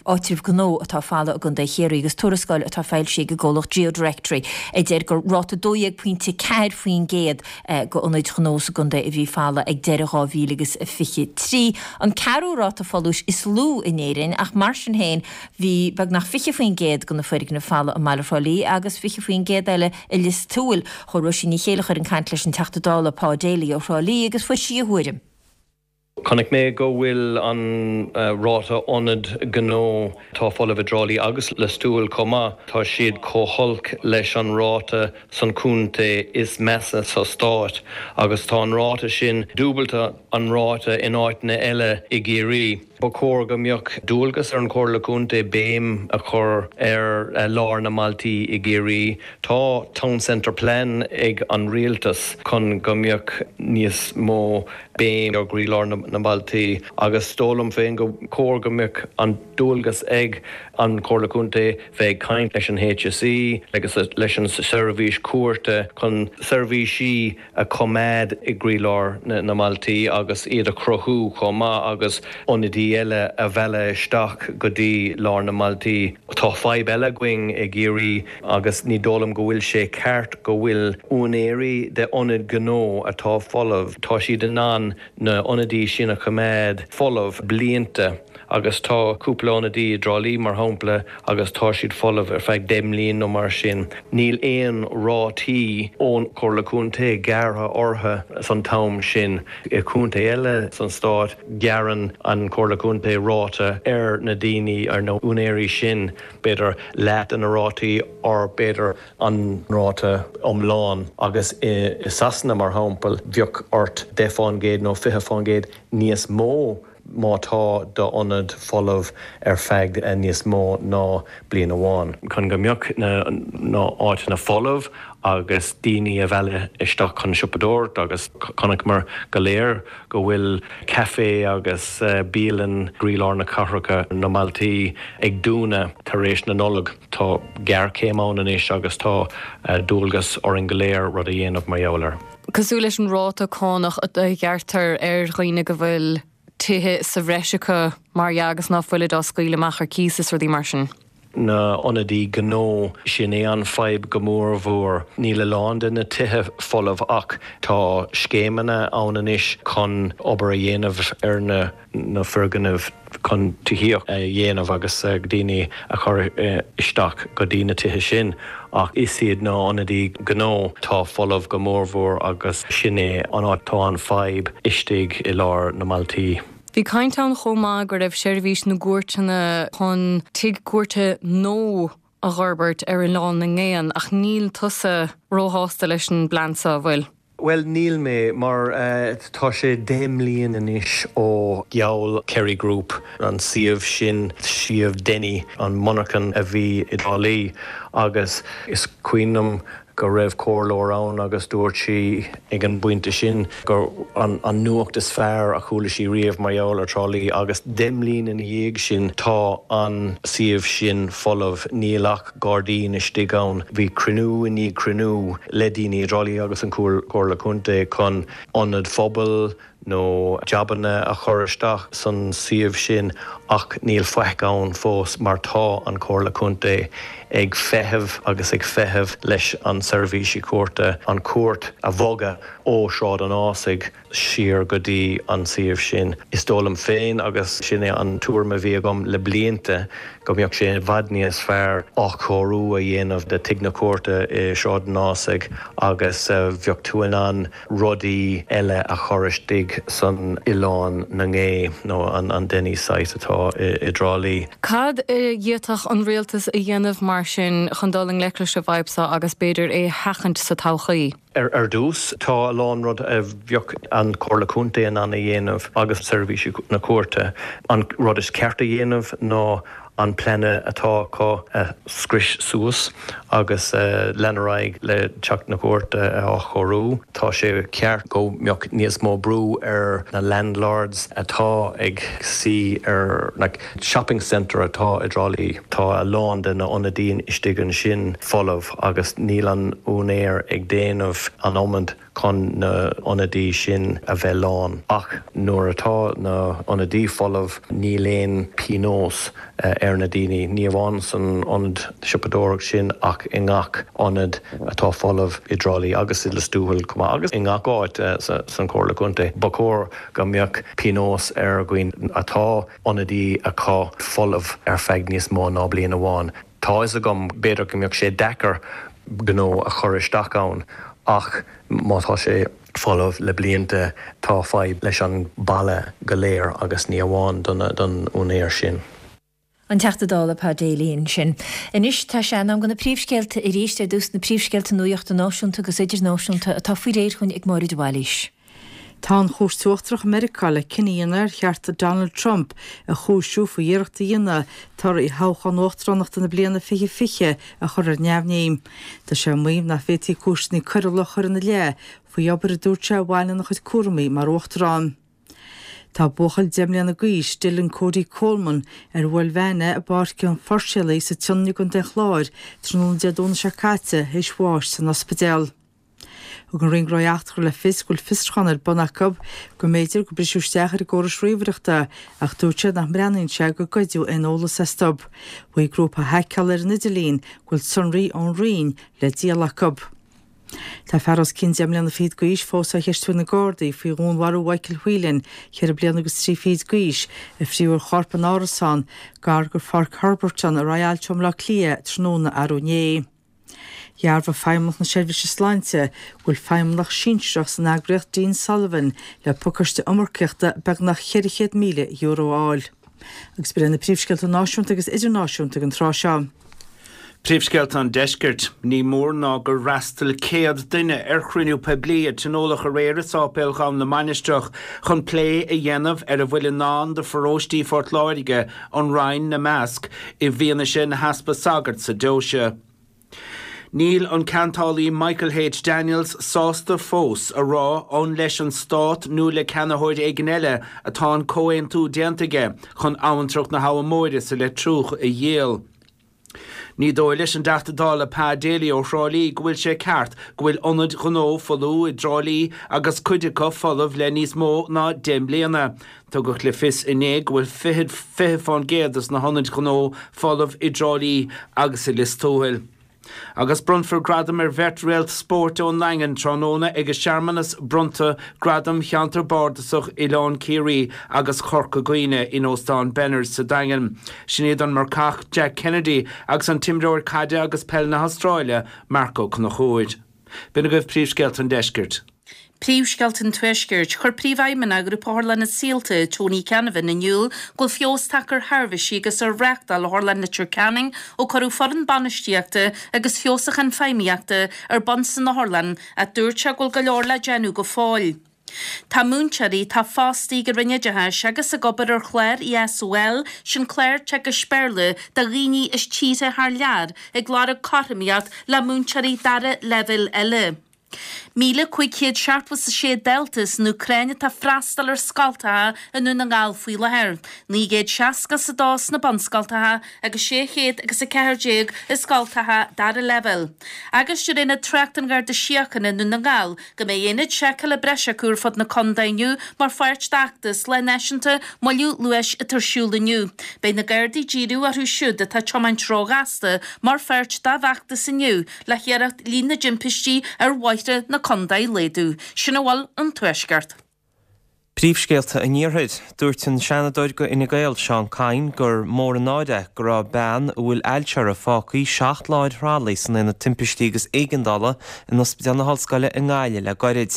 áitribh gnó atá folamh i gContae Chiarraí agus tuarascáil atá foilsithe ag an gcomhlacht GeoDirectory a deir gur ráta 12.4% go ionaid ghnó sa gcontae a bhí folamh ag deireadh 2023, an ceathrú ráta folúis is lú in Éirinn, ach mar sin féin bhí beagnach 20% de na foirgnimh folamh i mbaile Thrá Lí agus 20% eile i Lios Tuathail. Chuaigh Róisín Ní Chéilleachair chun caint leis an Teachta Dála Pa Daly ó Thrá Lí agus fuair sí a thuairim. Chonaic mé go bhfuil an ráta ionad gnó atá folamh i dTrá Lí agus Lios Tuathail chomh maith, tá siad chomh holc leis an ráta san chontae is measa sa stát agus tá an ráta sin dúbailte an ráta in áiteanna eile i gCiarraí. Ba chóir go mbeadh dualgas ar an Chomhairle Contae béim a chur ar lár na mbailtí i gCiarraí. Tá Town Centre Plan ag an Rialtas chun go mbeadh níos mó béim ar gcroílár na mbailtí agus is dóigh liom féin go chóir go mbeadh an dualgas ag an Chomhairle Contae bheith ag caint leis an HSE agus leis an seirbhís cúirte chun seirbhísí a choimeád i gcroílár na mbailtí agus iad a chruthú chomh maith agus ionadaí eile a mhealladh isteach go dtí lár na mbailtí. Tá fadhb eile againn i gCiarraí agus ní dóigh liom go bhfuil sé ceart go bhfuil úinéirí de ionaid ghnó atá folamh, tá siad in ann na ionadaí sin a choimeád folamh blianta agus tá cúpla ionadaí i dTrá Lí mar shampla agus tá siad folamh ar feadh 10 mbliain nó mar sin. Níl aon rátaí ón Chomhairle Contae gearrtha orthu san t-am sin. I gcontae eile san stát gearrann an Chomhairle Contae ráta ar na daoine, ar na úinéirí sin, b'fhéidir leath de na rátaí or b'fhéidir an ráta iomlán agus i Sasana mar shampla bheadh ort 10% nó 20% níos mó má tá d'ionad folamh ar feadh níos mó ná bliain amháin. Chun go mbeadh na áiteanna folamh agus daoine a mhealladh isteach chun siopadóireacht agus chonaiceamar go léir go bhfuil caifé agus bialann i gcroílár na cathracha, na mbailtí ag dúnadh tar éis na Nollag. Tá géarchéim ann anois agus tá dualgas orainn go léir rud a dhéanamh mar gheall air. Cosúil leis an ráta cánach a ghearrtar ar dhaoine go bhfuil tithe sa bhreis acu, mar dhea, agus ná fuilid á scaoileadh amach ar cíos is rudaí mar sin. na ionadaí gnó, sin é an fadhb go mór mhór. Níl a lán de na tithe folamh ach tá scéimeanna ann anois chun obair a dhéanamh ar na na foirgnimh chun tithíocht a dhéanamh agus daoine a chur isteach go dtí na tithe sin ach is iad na ionadaí gnó atá folamh go mór mhór agus sin é an áit tá an fadhb istigh i lár na mbailtí. Bhí caint ann chomh maith go raibh seirbhís na gcúirteanna chun tigh cúirte nua a dh'fhorbairt ar Oileán na nGael ach níl tusa róshásta leis an bplean seo, an bhfuil? Bhuel, níl mé, mar tá sé 10 mbliain anois ó gheall Kerry Group an suíomh sin, suíomh Denny, an monarchan a bhí i dTrá Lí, agus is cuimhin liom go raibh comhairleoir ann agus dúirt sí ag an bpointe sin gur an nuacht is fearr a chuala sí riamh mar gheall ar Trá Lí agus 10 mbliain ina dhiaidh sin tá an suíomh sin folamh, níl ach gairdín istigh ann. Bhí cruinniú i ndiaidh cruinniú le daoine i dTrá Lí agus an Chomhairle Contae chun ionad phobail, nó jabanna a chur isteach san suíomh sin ach níl faic ann fós mar tá an Chomhairle Contae ag feitheamh agus ag feitheamh leis an seirbhísí cúirte an chúirt a bhogadh ó Shráid an Ásaigh siar go dtí an suíomh sin. Is dóigh liom féin agus sin é an tuairim a bhí agam le blianta go mbeadh sé i bhfad níos fearr athchóiriú a dhéanamh de Tigh na Cúirte i Sráid an Ásaigh agus bheadh tú in ann rudaí eile a chur istigh. istigh san Oileán na nGé nó an Denny's site atá i dTrá Lí. Cad a d'fhéadfadh an rialtas a dhéanamh mar sin chun dul i ngleic leis an bhfadhb seo agus b'fhéidir é a sheachaint sa todhchaí? Ar dtús, tá a lán rud a bheadh an Chomhairle Contae in ann a dhéanamh agus seirbhísí na cúirte. An rud is ceart a dhéanamh ná an plean atá acu a scrios suas agus lean ar aghaidh le teach na cúirte a athchóiriú. Tá sé ceart go mbeadh níos mó brú ar na landlords atá ag suí ar na shopping centre atá i dTrá Lí. Tá a lán de na ionadaí istigh ansin folamh agus níl an úinéir ag déanamh an iomad chun na ionadaí sin a bheith lán. Ach nuair atá na ionadaí folamh níl aon pionós ar na daoine, ní amháin san ionad siopadóireacht sin ach i ngach ionad atá folamh i dTrá Lí agus i Lios Tuathail chomh maith agus i ngach áit san Chomhairle Contae. Ba chóir go mbeadh pionós ar dhaoine atá ionadaí acu folamh ar feadh níos mó ná bliain amháin. Tá fhios agam, b'fhéidir go mbeadh sé deacair gnó a chur isteach ann ach má tá sé folamh le blianta tá fadhb leis an baile go léir agus ní amháin don úinéir sin. An Teachta Dála Pa Daly ansin. Anois tá sé in am do na príomhscéalta arís, ar dtús na príomhscéalta nuachta náisiúnta agus idirnáisiúnta atá faoi réir chugainn ag Máire de Bhailís. Tá an Chúirt Uachtarach i Meiriceá le cinneadh a dhéanamh ar cheart Donald Trump a chúisiú faoi iarracht a dhéanamh torthaí thoghchán uachtaránachta na bliana 2020 a chur ar neamhní. Tá sé ag maíomh nach bhféadfaí cúiseanna coiriúla a chur ina leith faoi obair a dúirt sé a bhain lena chuid cúramaí mar uachtarán. Tá buachaill 10 mbliana d'aois, Dylan Cody Coleman, ar bhuail veain é i bPáirc an Phuirséalaigh sa tSionainn i gContae an Chláir tráthnóna Dé Domhnaigh seo caite théis bháis san ospidéal. Thug an Roinn Gnóthaí Eachtracha le fios go bhfuil fiosrúchán ar bun acu go mb'fhéidir gur briseadh isteach ar a gcórais ríomhaireachta ach dúirt siad nach mbreathnaíonn sé gur goideadh aon eolas astu. Mhaígh grúpa a haiceáladh ar an idirlíon go bhfuil sonraí ón Roinn le díol acu. Tá fear os cionn 10 mbliana fichead d'aois fós á cheistiú ag na Gardaí faoi dhúnmharú Mhichael Whelan, cheithre bliana agus trí fichid d'aois, a fríothadh a chorp in árasán gar do Pháirc Herberton i Rialto i mBleá Cliath tráthnóna arú inné. Dhearbhaigh Feidhmeannacht na Seirbhíse Sláinte go bhfuil feidhmeannach sinsearach san eagraíocht Dean Sullivan le pacáiste iomarcaíochta beagnach €400,000 a fháil. Agus b'in iad na príomhscéalta náisiúnta agus idirnáisiúnta ag an tráth seo. Príomhscéalta an Deiscirt. Ní mór ná gur fhreastail 100 duine ar chruinniú poiblí a tionóladh aréir i Sáipéal Dhún na Mainistreach chun plé a dhéanamh ar a bhfuil i ndán do pharóistí Phort Láirge, an Rinn 'na measc, i bhfianaise na heaspa sagart sa deoise. Níl an ceantálaí Michael H. Daniels sásta fós a rá an leis an stát nó le ceannaitheoir éigin eile atá an comhaontú déanta aige chun abhantrach na hAbha Móire sa Leitriúch a dhíol. Ní dóigh leis an dTeachta Dála Pa Daly ó Thrá Lí go bhfuil sé ceart go bhfuil ionaid ghnó folmha i dTrá Lí agus cuid acu folamh le níos mó ná 10 mbliana. Tugadh le fios inné go bhfuil 20% des na hionaid ghnó folamh i dTrá Lí agus i Lios Tuathail. Agus bronnfar gradam ar bheirt réalt spóirt ón nDaingean tráthnóna ag searmanas bronnta Gradam Cheantar Bardasach Oileán Ciarraí agus Chorca Dhuibhne in Óstán Benners sa Daingean. Sin iad an marcach Jack Kennedy agus an t-imreoir caide agus peil na hAstráile, Marc Ó Conchúir. B'in agaibh príomhscéalta an deiscirt. Príomhscéalta an Tuaiscirt. Chuir Príomhfheidhmeannach Ghrúpa Otharlanna Saolta, Tony Canavan, in iúl go bhfuil feabhas tagtha ar sheirbhísí agus ar reáchtáil Otharlann Leitir Ceanainn ó cuireadh foireann bainistíochta agus feabhsúchán feidhmíochta ar bun san otharlann ach dúirt sé go bhfuil go leor le déanamh go fóill. Tá múinteoirí atá fostaithe ag an Roinn Oideachais agus ag obair ar chlár ESOL, sin clár teagaisc Béarla do dhaoine as tíortha thar lear, ag lorg cothromaíocht le múinteoirí dara leibhéal eile. 1,576 dalta san Úcráin atá ag freastal ar scoltacha i nDún na nGall faoi láthair, 962 sna bunscoltacha agus 614 i scoltacha dara leibhéal. Agus deir Aonad Tráchta an Gharda Síochána i nDún na nGall go mbeidh aonad seiceála breise acu ar fud na contae inniu mar pháirt d'fheachtas Lá Náisiúnta Moilliú Luais atá ar siúl inniu. Beidh na Gardaí ag díriú orthu siúd atá ag tiomáint róghasta mar pháirt dá bhfeachtas inniu le hiarracht líon na dtimpistí ar bhóithre na contae a laghdú. Sin a bhfuil ón Tuaisceart. Príomhscéalta an Iarthair. Dúirt an Seanadóir go Fhine Gael, Seán Kyne, gur mór an náire é go raibh bean a bhfuil ailse uirthi fágtha 7 lá ar thralaí san Aonad Timpistí agus Éigeandála in Ospidéal na hOllscoile i nGaillimh le goirid.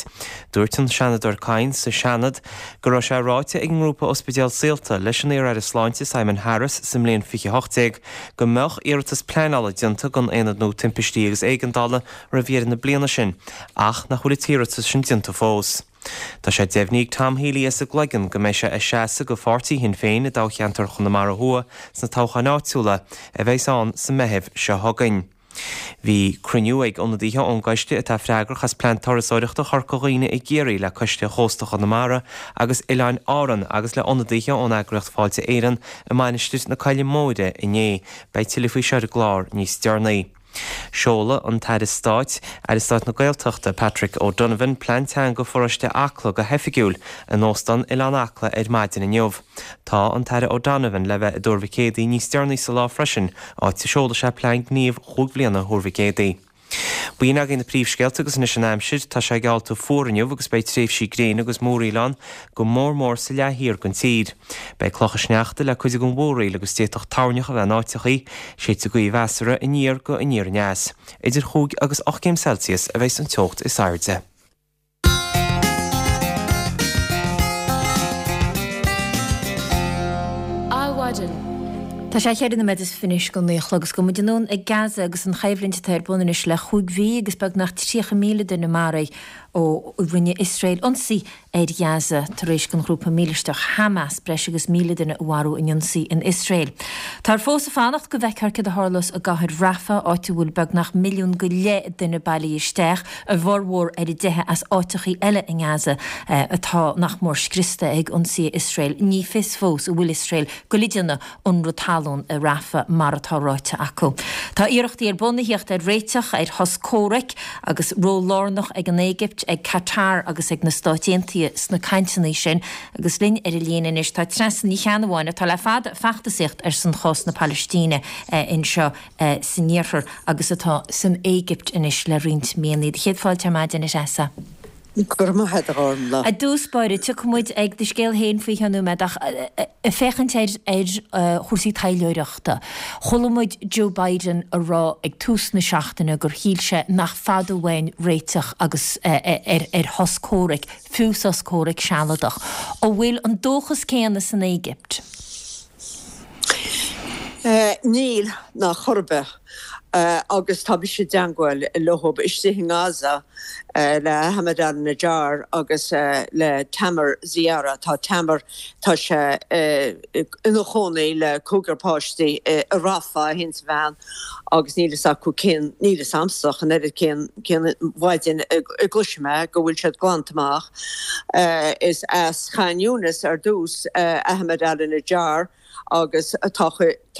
Dúirt an Seanadóir Kyne sa Seanad go raibh sé ráite ag an ngrúpa Ospidéal Saolta leis an iar-aire sláinte Simon Harris sa mbliain 2018 go mbeadh iarratas pleanála déanta don Aonad nua Timpistí agus Éigeandála roimh dheireadh na bliana sin ach nach bhfuil an t-iarratas sin déanta fós. Tá sé deimhnithe ag Tom Healy as an gCloigeann go mbeidh sé ag seasamh go pháirtí Shinn Féin i dtoghcheantar Chonamara Thuaidh sna toghcháin áitiúla a bheas ann sa Meitheamh seo chugainn. Bhí cruinniú ag ionadaithe ón gcoiste atá freagrach as Plean Turasóireachta Chorca Dhuibhne i gCiarraí le Coiste Chósta Chonamara agus Oileáin Árann agus le ionadaithe ón eagraíocht Fáilte Éireann i Mainistir na Coille Móire inné. Beidh tuilleadh faoi seo ar an gclár níos deireanaí. Seolfaidh an tAire Stáit, Aire Stáit na Gaeltachta, Patrick O'Donovan, Plean Teanga Pharóiste Acla go hoifigiúil in Óstán Oileán Acla ar maidin inniu. Tá an tAire O'Donovan le bheith i dTuar Mhic Éadaigh níos deireanaí sa lá freisin, áit a seolfaidh sé Plean Gníomh chúig bhliana Thuar Mhic Éadaigh. B'in agaibh na príomhscéalta agus anois an aimsir. Tá sé geallta fuar inniu agus beidh tréimhsí gréine agus múraíl ann, go mór mór sa leath thiar den tír. Beidh clocha sneachta le cuid den mhúraíl agus d'fhéadfadh toirneach a bheith in áiteachaí, séidfidh gaoth mheasartha aniar go aniar aneas. Idir chúig agus 8 gcéim Celsius a bheas an teocht is airde. Adhmhaidin. Tá sé cheithre nóiméad is fiche anois go naoi a chlog agus gabhfaidh muid anonn ag Gaza agus an choimhlint atá ar bun anois le chúig mhí agus beagnach 30,000 duine maraithe ó rinne Iosrael ionsaí ar Ghaza tar éis don ghrúpa mílisteach Hamas breis agus 1,000 duine a mharú in ionsaí in Iosrael. Táthar fós ag fanacht go bhfeicfear céard a tharlós i gcathair Rafah, áit a bhfuil beagnach milliún go leith duine bailithe isteach, a bhformhór ar a dteitheadh as áiteachaí eile i nGaza atá nach mór scriosta ag ionsaithe Iosrael. Ní fios fós an bhfuil Iosrael ag goil a dhéanamh ionradh talún i Rafah mar atá ráite acu. Tá iarrachtaí ar bun a thíocht ar réiteach ar shos comhraic agus ról lárnach ag an Éigipt, ag Qatar agus ag na Stáit Aontaithe sna cainteanna sin. Agus linn ar an líne anois tá Treasa Ní Cheannabháin atá le fada ag feachtasaíocht ar son chás na Palaistíne anseo san iarthar agus atá san Éigipt anois le roinnt míonna. Do chéad fáilte ar maidin, a Threasa. Go raibh maith agat, a Ghormfhlaith. I dtús báire, tiocfaidh muid ag do scéal féin faoi cheann nóiméad ach ag féachaint ar ar chúrsaí taidhleoireachta, chuala muid Joe Biden a rá ag tús na seachtaine gur shíl sé nach fada uainn réiteach agus ar ar shos comhraic, fiú sos comhraic sealadach. An bhfuil an dóchas céanna san Éigipt? Níl, ná chor ar bith. Agus tá mise i dteangmháil leo istigh i nGaza, le Ahmed al-Najjar agus le Tamer Ziara. Tá Tamer, tá sé ina chónaí le cúigear páistí i Rafah, é féin is a bhean, agus níl fhios acu cén, níl fhios a'msa ach an oiread cén, cén mhaidin a gcloisfidh mé go bhfuil siad glanta amach. Is as Khan Younis ar dtús Ahmed al-Najjar agus tá tá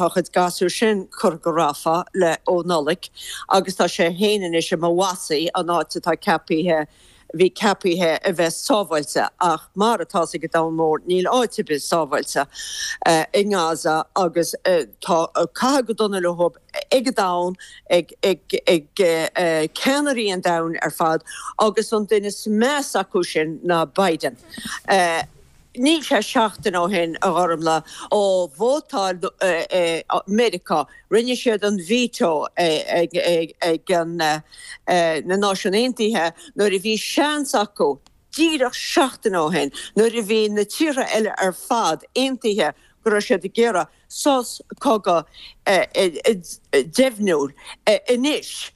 a chuid gasúr sin curtha go Rafah le ó Nollaig agus tá sé féin anois i Mawasi, an áit atá ceapaithe bhí ceapaithe a bheith sábháilte ach mar atá fhios ag an domhan mór níl áit ar bith sábháilte i nGaza agus tá caitheamh go dona leo ag an domhan, ag ag ceannairí an domhain ar fad agus an duine is measa acu sin ná Biden. Níl sé seachtain ó shin, a Ghormfhlaith, ó vótáil Meiriceá, rinne siad an veto ag na Náisiúin Aontaithe nuair a bhí seans acu, díreach seachtain ó shin, nuair a bhí na tíortha eile ar fad aontaithe go raibh siad ag iarraidh sos cogaidh deimhniúil anois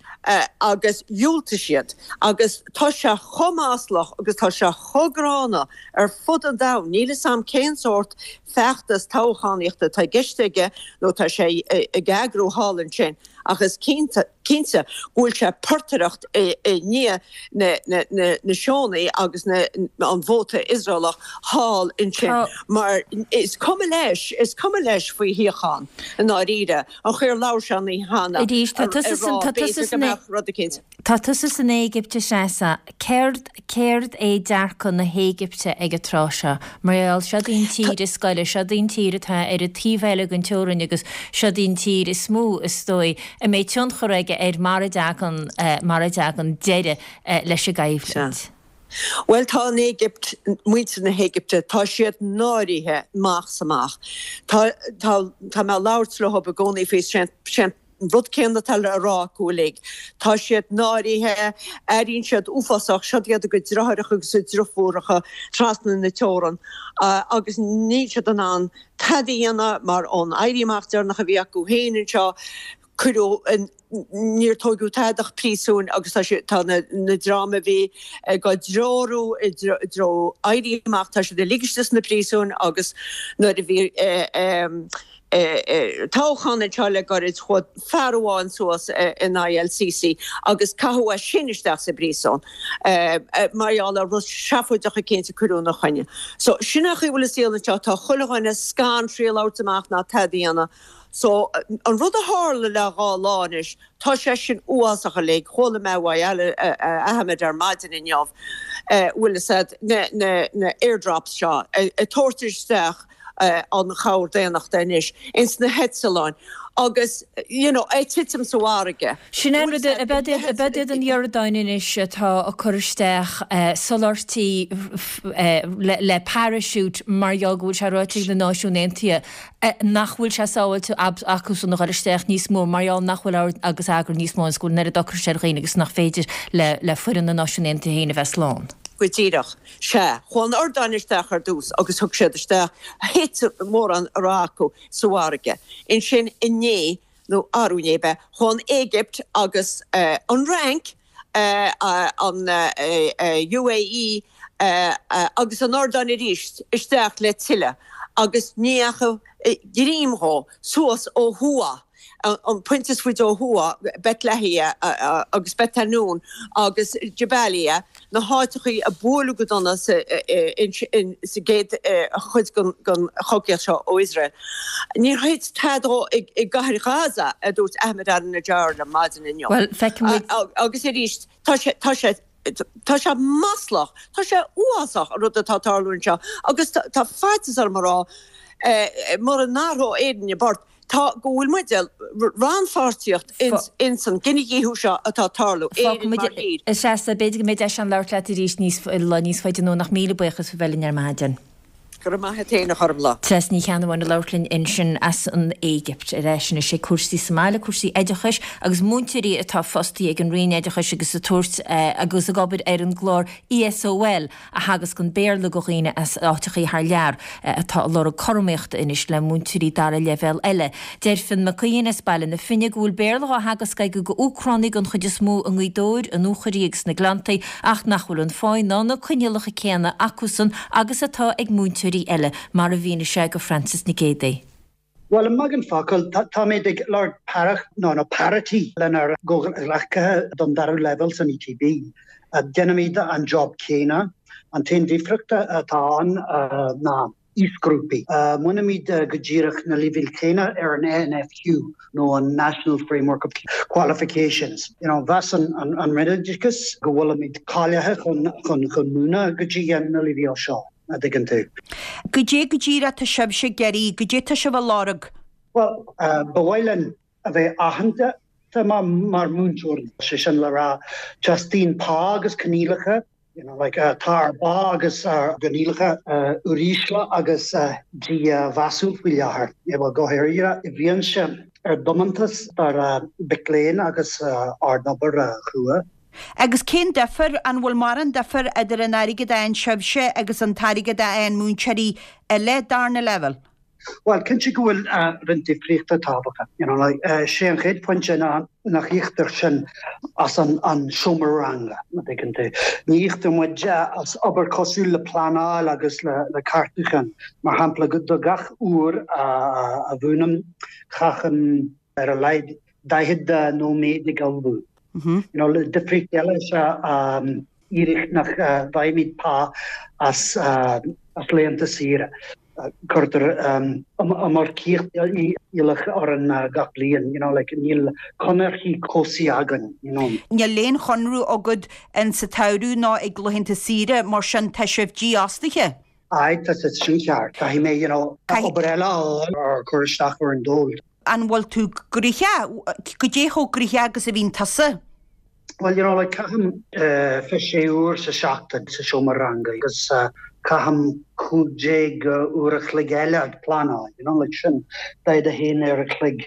agus dhiúltaigh siad agus tá sé chomh maslach agus tá sé chomh gránna ar fud an domhain. Níl 'fhios a'm cén sórt feachtas toghchánaíochta atá i gceist aige nó tá sé ag eagrú thall ansin ach is cinnte cinnte go bhfuil sé ag portaireacht i ndiaidh na Síónaigh agus an vóta Iosraelach thall ansin mar is cuma leis, is cuma leis faoi shíocháin i ndáiríre. An chaoi ar labhair sé an oíche cheana ag rá b'fhéidir go mbeadh rud eicínt. Tá tusa san Éigipt, a Threasa. Céard, céard é dearcadh na hÉigipte ag an tráth seo? Mar gheall, seod í an tír is gaire, seod í an tír atá ar an taobh eile den teorainn agus seod í an tír is mó, is dóigh, a mbeidh tionchar aige ar mar a dtagann, mar a dtagann deireadh leis an gcoimhlint. Sea. Bhuel, tá an Éigipt, muintir na hÉigipte, tá siad náirithe amach 's amach. Tá, tá, tá mé ag labhairt leo i gcónaí faoi, sé an rud céanna atá le rá acu uilig. Tá siad náirithe, airíonn siad uafásach, siod iad a gcuid deartháireacha agus a driofúracha trasna na teorann agus níl siad in ann tada a dhéanamh mar ón éirí amach deireanach a bhí acu féin anseo, cuireadh, níor tóigeadh tada ach príosúin agus tá sé, tá na, na dream a bhí ag á dtreorú i dtreo éirí amach, tá siad uilig istigh sna príosúin agus nuair a bhí toghchán anseo le gairid chuaigh fear amháin suas in aghaidh El Sisi agus caitheadh é sin isteach sa bpríosún mar gheall ar rud seafóideach eicínt a cuireadh ina choinne. So sin é an chaoi a bhfuil an saol anseo, tá chuile dhuine scanraithe labhairt amach ná tada a dhéanamh. So, an rud a tharla le dha lá anois, tá sé sin uafásach uilig. Chuala mé uaidh Ahmed ar maidin inniu, bhfuil fhios a'd, na, na, na airdrops seo ag tabhairt isteach an chabhair daonnachta anois ins na heitleáin agus, you know, ag titim sa bhfarraige. Sin é an rud, ab iad an Iordáin anois atá ag cur isteach soláthairtí le parachute mar gheall go bhfuil sé ráite ag na Náisiúin Aontaithe nach bhfuil sé sábháilte acusan a dhul isteach níos mó mar gheall nach bhfuil ord agus eagar níos mó agus go bhfuil an oiread ocrais ar dhaoine agus nach féidir le foireann na Náisiún Aontaithe féin a bheith slán. Go díreach. Sea. Chuaigh an Iordáin isteach ar dtús agus thug siad isteach, thit mórán a raibh acu sa bhfarraige. Ansin inné, nó arú inné ab ea, chuaigh an Éigipt agus an Fhrainc, an UAE agus an Iordáin arís isteach le tuilleadh agus ní dheachaigh greim dhó suas ó thuaidh, an pointe is faide ó thuaidh, Beit Lahia agus Beit Hanoun agus Jabalia, na háiteachaí a buaileadh go dona sa gcéad chuid den chogaíocht seo ó Iosrael. Níor thit tada dhó i gcathair Ghaza, a dúirt Ahmed al-Najjar liom maidin inniu. Bhuel, feicfidh muid. Agus arís, tá sé, tá sé, tá sé maslach, tá sé uafásach an rud atá ag tarlú anseo agus tá faitíos orm a rá, mura n-athróidh Éirinn a bport, Tá, go bhfuil muid rannpháirtíocht ins an gcinedhíothú seo atá ag tarlú, Éirinn mar thír. A Threasa, b'fhéidir go mbeidh deis ann labhairt leat arís níos, lá níos faide anonn ach míle buíochas faoi bheith linn ar maidin. Go raibh maith a't fhéin a Ghormfhlaith. Treasa Ní Cheannabháin ag labhairt linn ansin as an Éigipt. Ar ais anois ag cúrsaí sa mbaile, cúrsaí oideachais agus múinteoirí atá fostaithe ag an Roinn Oideachais agus ag tabhairt agus ag obair ar an gclár ESOL a theagascann Béarla do dhaoine as áiteachaí thar lear atá ag lorg cothromaíochta anois le múinteoirí dara leibhéal eile. Deir Fionn Mac Aodhain as Baile na Finne go bhfuil Béarla á theagasc aige go Úcránaigh den chuid is mó i nGaoth Dobhair, i nDúchoraidh agus sna Gleanntaí ach nach bhfuil an pháí ná na coinníollacha céanna acusan agus atá ag múinteoirí eile, mar a mhínigh sé go Frances Nic Géadaigh. Bhuel, i mbeagán focal, táimid ag lorg paireacht, nó nó parity lenár gcomhghleacaithe don dara leibhéal san ETB. Déanaimid an job céanna. An t-aon difríocht atá ann ná aoisghrúpaí. Múinimid go díreach na leibhéil chéanna ar an NFQ, nó an National Framework of Qualifications. You know, mheas an Roinn Oideachais go bhfuilimid cáilithe chun chun múineadh go dtí na leibhéil seo. a' dtuigeann tú. Goidé go díreach tá sibhse ag iarraidh, goidé tá sibh a lorg? Bhuel, ba mhaith linn a bheith aitheanta mar mhúinteoirí, sé sin le rá, teastaíonn pá agus coinníollacha, you know, like, tá ár bpá agus ár gcoinníollacha uirísle agus dímheasúil faoi láthair, bhuel, go háirithe i bhfianaise ár dtiomantas dár mhic léinn agus ár n-obair chrua. Agus cén difear, an bhfuil mórán difear idir an airgead a fhaigheann sibhse agus an t-airgead a fhaigheann múinteoirí eile darna leibhéal? Bhuel, cinnte go bhfuil roinnt difríochta tábhachtach. You know, like, sé an chéad phointe ná nach íoctar sinn as an an seomra ranga, an dtuigeann tú. Ní íoctar muid as obair cosúil le pleanáil agus le le ceartúchán. Mar shampla, do gach uair a mhúinim, caithim ar a laghad 40 nóiméad ag ullmhú. You know, difríocht eile is ea an fhíric nach bhfaighimid pá as as laethanta saoire. Cuirtear iomarcaíocht iallach orainn gach bliain, you know, like níl conarthaí cobhsaí againn, you know. Níl aon chonradh agat in sa tsamhradh ná ag laethanta saoire, mar sin tá sibh dífhostaithe. Aye, tá sé sin ceart. Caithfidh mé, you know, obair eile a fháil or cur isteach ar an dól. An bhfuil tú gnoitheach? Goidé chomh gnoitheach agus a bhíonn tusa? Bhuel, you know, like, caithim 26 uair sa seachtain sa seomra ranga agus caithim 15 uair a chloig eile ag pleanáil, you know, like sin 41 uair a chloig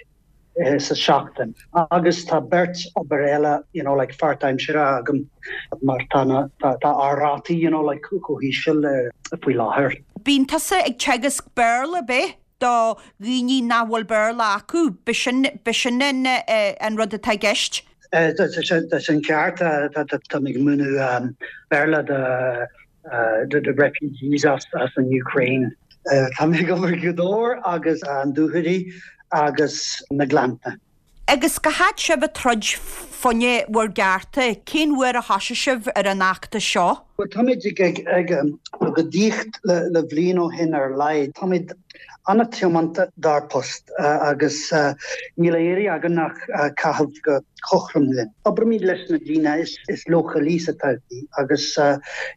sa seachtain. Agus tá beirt obair eile, you know, like pháirtaimseartha agam mar tá na, tá, tá ár rátaí, you know, like chomh híseal faoi láthair. Bíonn tusa ag teagasc Béarla, ab ea, do dhaoine nach bhfuil Béarla acu, b'shin, b'shin an, an rud atá i gceist? Tá sin ceart, tá mé ag múineadh Béarla do refugees as an Ukraine. Tá mé ag obair i Gaoth Dobhair agus an Dúchoraidh agus na Gleannta. Agus cá fhad sibh ag troid fá choinne bhur gcearta? Cén uair a thosaigh sibh ar an fheachtas seo? Bhuel, táimid ag agóidíocht le bliain ó shin ar a laghad. Táimid an-tiomanta dár bpost agus níl á iarraidh againn ach caitheamh go cothrom linn. Oibrímid leis na daoine is leochailí sa todhchaí agus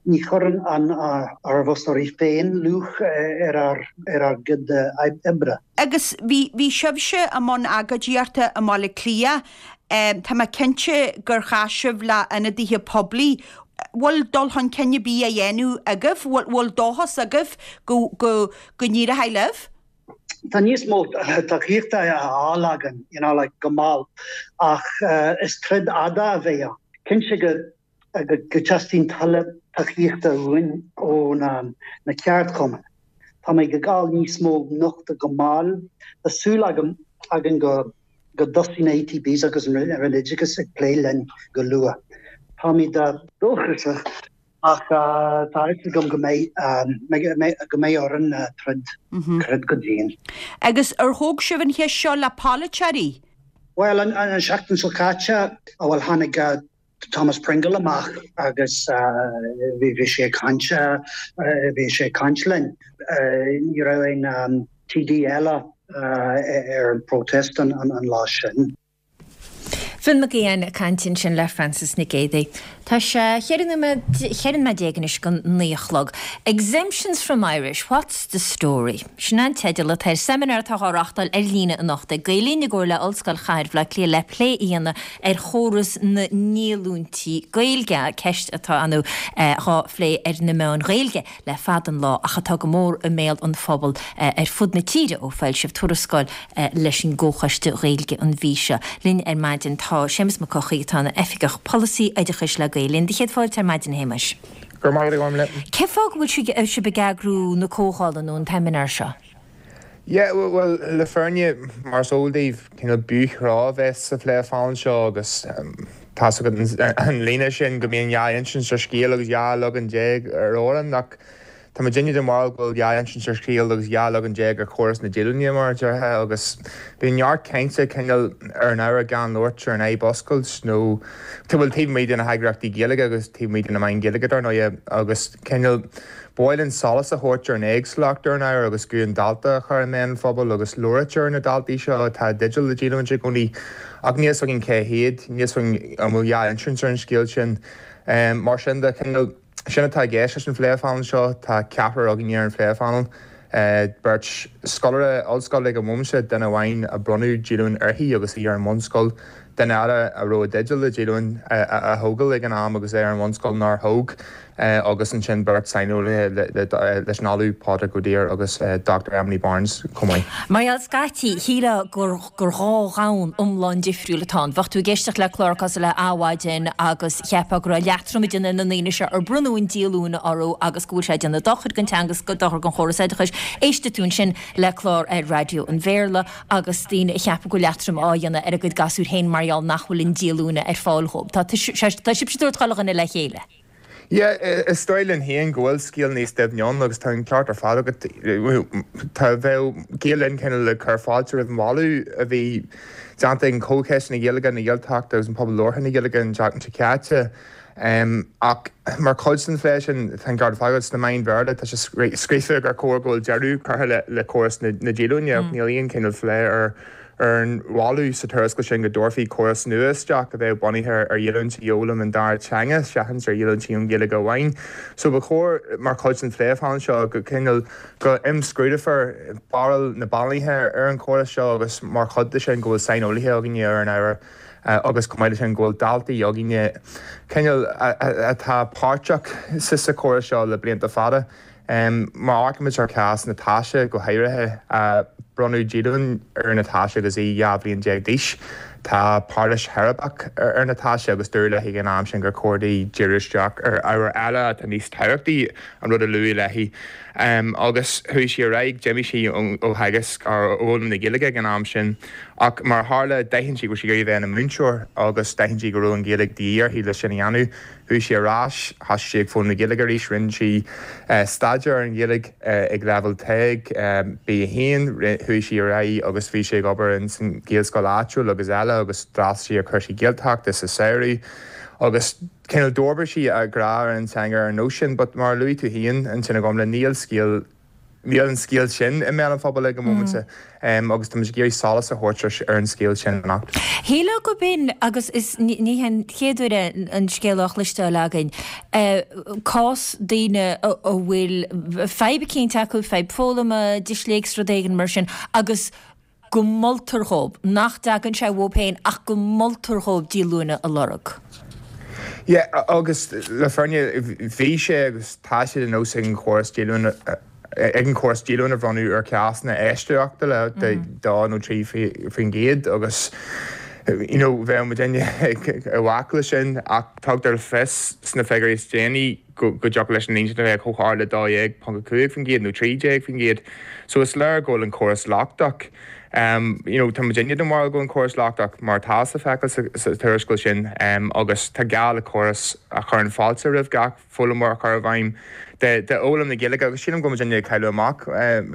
ní chuireann ár bhfostóirí féin luach ar ár gcuid oibre. Agus bhí, bhí sibhse i mbun agóidíochta i mBaile Átha Cliath. Tá mé cinnte gur chas sibh le ionadaithe poiblí. Bhfuil dul chun cinn ar bith á dhéanamh agaibh? Bhfuil, bhfuil dóchas agaibh go, go, go n-éireoidh libh? Tá níos mó tacaíochta á fháil againn, you know, like, go mall, ach is troid fhada a bheidh ann. Cinnte go go dteastaíonn tuilleadh tacaíochta uainn ó na ceardchumainn. Táimid ag fáil níos mó nochtadh go mall. Tá súil agam againn go dtosaíonn na ETBs agus an Roinn Oideachais ag plé linn go luath. Táimid dóchasach ach tá a fhios agam go mbeidh orainn troid, troid go dian. Agus ar thóg sibh an cheist seo le polaiteoirí? Bhuel, an seachtain seo caite, bhuel, tháinig Thomas Pringle amach agus bhí sé ag caint, bhí sé ag caint linn. Ní raibh aon TD eile ar an protest an lá sin. Finn Mac Aodháin ag caint ansin le Frances Nic Géadaigh. Tá sé 14 nóiméad anois go 9 a chlog. Exemptions from Irish, what's the story? Sin an teideal atá ar seimineár atá á reáchtáil ar líne anocht ag Gael Linn i gcomhar le Ollscoil Chathair Bhaile Átha Cliath le plé a dhéanamh ar chóras na ndíolúintí Gaeilge, ceist atá ar ndóigh dhá phlé ar na meáin Ghaeilge le fada an lá ach atá go mór i mbéal an phobail ar fud na tíre ó foilsíodh tuarascáil leis an gComhchoiste Gaeilge an mhí seo. Linn ar maidin tá Séamus Mac Eochaidh atá ina Oifigeach Polasaí Oideachais le Gael Linn. Do chéad fáilte ar maidin a Shéamais. Go raibh maith agat a Ghormfhlaith. Cén fáth go bhfuil sibh ag eagrú na comhdhála nó an tseimineáir seo? Yeah, bhuel, le fírinne, mar is eol daoibh, cineál b'fhiú a bheith sa phléphainéal seo agus tá's agat an líne sin go mbíonn dhá insint ar scéal agus 12 leagan ar amhrán ach tá muidinne den bharúil go bhfuil dhá insint ar scéal agus 12 leagan ar chóras na díolúine mar a déarfá agus bíonn neart cainte cineál ar an ábhar gan labhairt ar an fhadhb oscailt nó bhuel taobh amuigh de na heagraíochtaí Gaeilge agus taobh amuigh de na meáin Ghaeilge dar ndóighe agus cineál Ba mhaith linn solas a thabhairt ar an éagsúlacht ar an ábhar agus guth an dalta a chur i mbéal an phobail agus labhairt ar na daltaí seo atá i dteideal le díolúint i gcónaí ach níl 'fhios againn cé hiad, níl 'fhios againn an bhfuil dhá insint ar an scéal sin. Mar sin de, cineál, sin atá i gceist leis an phléphainéal seo. Tá ceathrar againne ar an phléphainéal, beirt scoláire ollscoile ag an bhomaite, duine amháin a bronnadh díolúint uirthi agus í ar an mbunscoil, duine eile a raibh i dteideal le díolúint a thógáil ag an am agus é ar an bhunscoil nár thóg. agus ansin beirt saineolaithe leis an Ollamh Pádraig Ó Duibhir agus Dr Emily Barnes chomh maith. Mar gheall scaití, shílfeá gur gur dhá dhomhan iomlán difriúil atá ann. Bheadh tú ag éisteacht le clár cosúil le Adhmhaidin agus cheapfá go raibh leatrom ag déanamh ar na ndaoine seo ar bronnadh an díolúine orthu agus go bhfuil sé ag déanamh dochair don teanga agus dochar don chóras oideachais. Éistfidh tú ansin le clár ar raidió an Bhéarla agus daoine a cheapadh go bhfuil leatrom á dhéanamh ar a gcuid gasúir féin mar gheall nach bhfuil an díolúine ar fáil dhóibh. Tá sibhse ag tabhairt chuile dhuine le chéile. Yeah, is dóigh linn féin go bhfuil scéal níos doimhne ann agus tá an ceart ar fad agat. Tá, bheadh Gael Linn cineál ag cur fáilte roimh an mholadh a bhí déanta ag an Chomhchoiste na Gaeilge, na Gaeltachta agus an Pobal Labhartha na Gaeilge an tseachtain seo caite. Ach mar chuid den phlé sin, tá an ceart ar fad agat, sna meáin Bhéarla tá sé scríofa gur chóir go bhfuil deireadh curtha le córas na díolúine ach níl aon chineál phlé ar ar an mholadh sa tuarascáil sin go dtabharfaí córas nua isteach a bheadh bunaithe ar dhíolúintí i bhfoghlaim an dara teanga seachas ar dhíolúintí ón Ghaeilge amháin. So ba chóir, mar chuid den phléphainéal seo, go cineál go imscrúdófar barúil na bpainéalaithe ar an chóras seo agus mar chuid de sin go bhfuil saineolaithe againne ar an ábhar. Agus chomh maith leis sin go bhfuil daltaí againne cineál atá páirteach sa chóras seo le blianta fada. Má amharcaimid ar chás Natasha go háirithe, bronnadh díolúine ar Natasha agus í 12 bhliain d'aois. Tá pairilis cheirbreach ar Natasha agus dúradh léi ag an am sin gur chóir di díriú isteach ar ábhair eile atá níos tábhachtaí, an rud a luadh léi. Agus chuaigh sí ar aghaidh, d'imigh sí ó theagasc, ó fhoghlaim na Gaeilge ag an am sin. Ach mar a tharla, d'aithin sí go raibh sí ag iarraidh a bheith ina múinteoir agus d'aithin sí go raibh an Ghaeilge de dhíth uirthi le sin a dhéanamh. Chuaigh sí ar ais, thosaigh sí ag foghlaim na Gaeilge arís, rinne sí staidéar ar an Ghaeilge ag leibhéal TEG, B1, chuaigh sí ar aghaidh agus bhí sí ag obair ins an Ghaelscoil áitiúil agus eile agus d'fhreastail sí ar chúrsaí Gaeltachta sa samhradh agus cineál d'fhorbair sí a grá ar an teanga ar an nós sin. But mar a luaigh tú féin ansin a Ghormfhlaith, níl scéal Níl an scéal sin i mbéal an phobail ag an móimint agus tá muid ag iarraidh solas a thabhairt ar an scéal sin anocht. Shílfeá gurb in, agus is ní hé an chéad uair é an scéal á chloisteáil againn, cás daoine a bhfuil fadhb eicínt acu, fadhb foghlama, disléicse, rud éigin mar sin, agus go moltar dhóibh, nach dtagann sé uathu féin ach go moltar dhóibh díolúine a lorg. Yeah, agus le fírinne, bhí sé agus tá sé de nós ag an chóras díolúine, ag an chóras díolúine a bhronnadh ar chásanna eisceachtúla de 2 nó 3% agus you know bheadh muidinne i bhfách leis sin ach tugtar le fios sna figiúirí is déanaí go dtiocfadh leis an líon sin a bheith chomh hard le 12.5% nó 13%. So is léir go bhfuil an córas lochtach. You know, tá muidinne den bharúil go bhfuil an córas lochtach, mar atá le feiceáil sa tuarascáil sin, agus tá gá le córas a chuireann fáilte roimh gach foghlaimeoir a chur i bhfeidhm d'fhoghlaim na Gaeilge agus sílim go bhfuil muidinne ag cailleadh amach,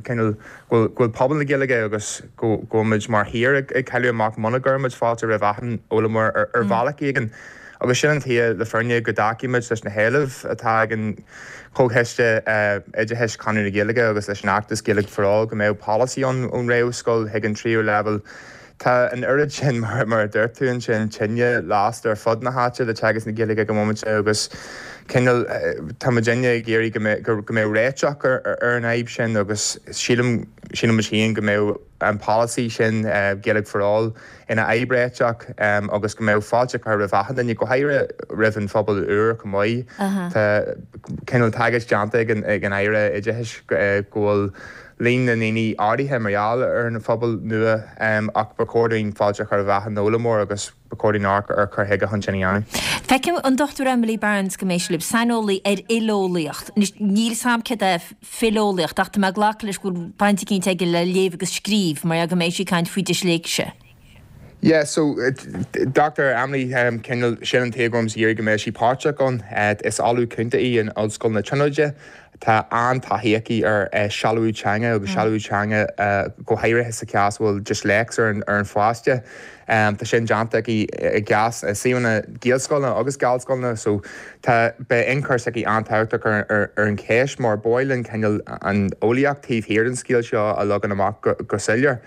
cineál, go bhfuil pobal na Gaeilge agus go bhfuil muid mar thír ag cailleadh amach muna gcuireann muid fáilte roimh achan fhoghlaimeoir ar bhealach éigin. Agus sin an tuige, le fírinne, go dtacaímid leis na héilimh atá ag an Chomhchoiste Oideachais, Conradh na Gaeilge agus leis an fheachtas Gaeilge for All go mbeadh polasaí ann ón réamhscoil chuig an tríú leibhéal. Tá an oiread sin, mar a dúirt tú ansin, tine lasta ar fud na háite le teagasc na Gaeilge ag an móimint agus cineál tá muidinne ag iarraidh go mbeadh réiteach ar an fhadhb sin agus sílim, sílimid féin go mbeadh an polasaí sin, Gaeilge for All, ina fhadhb réiteach agus go mbeadh fáilte curtha roimh achan duine, go háirithe roimh an phobal úr chomh maith. Tá cineál tagairt déanta ag an Aire Oideachais go bhfuil líon na ndaoine ardaithe mar gheall ar an phobal nua ach ba chóir dúinn fáilte a chur roimh achan fhoghlaimeoir agus ba chóir dúinn amharc ar chur chuige chun sin a dhéanamh. Feicim an Dr Emily Barnes go mbeidh sí libh, saineolaí ar fhileolaíocht. Anois, níl 's a'm céard é fileolaíocht ach tá mé ag glacadh leis go bhfuil baint eicínt aige le léamh agus scríobh mar go mbeidh sí ag caint faoi disléicse. Yeah, so Dr Emily, cineál, sin an tuige go raibh muid ag iarraidh go mbeadh sí páirteach ann. Is Ollamh Cúnta í in Ollscoil na Tríonóide. Tá an-taithí aici ar sealbhú teanga agus sealbhú teanga go háirithe sa chás a bhfuil disléicse ar an pháiste. Tá sin déanta aici i gcás i suíomhanna Gaelscoileanna agus Gallscoileanna so tá, beidh ionchur s'aici an-tábhachtach ar an cheist mar ba mhaith linn cineál an eolaíocht taobh thiar den scéal seo a leagan amach go soiléir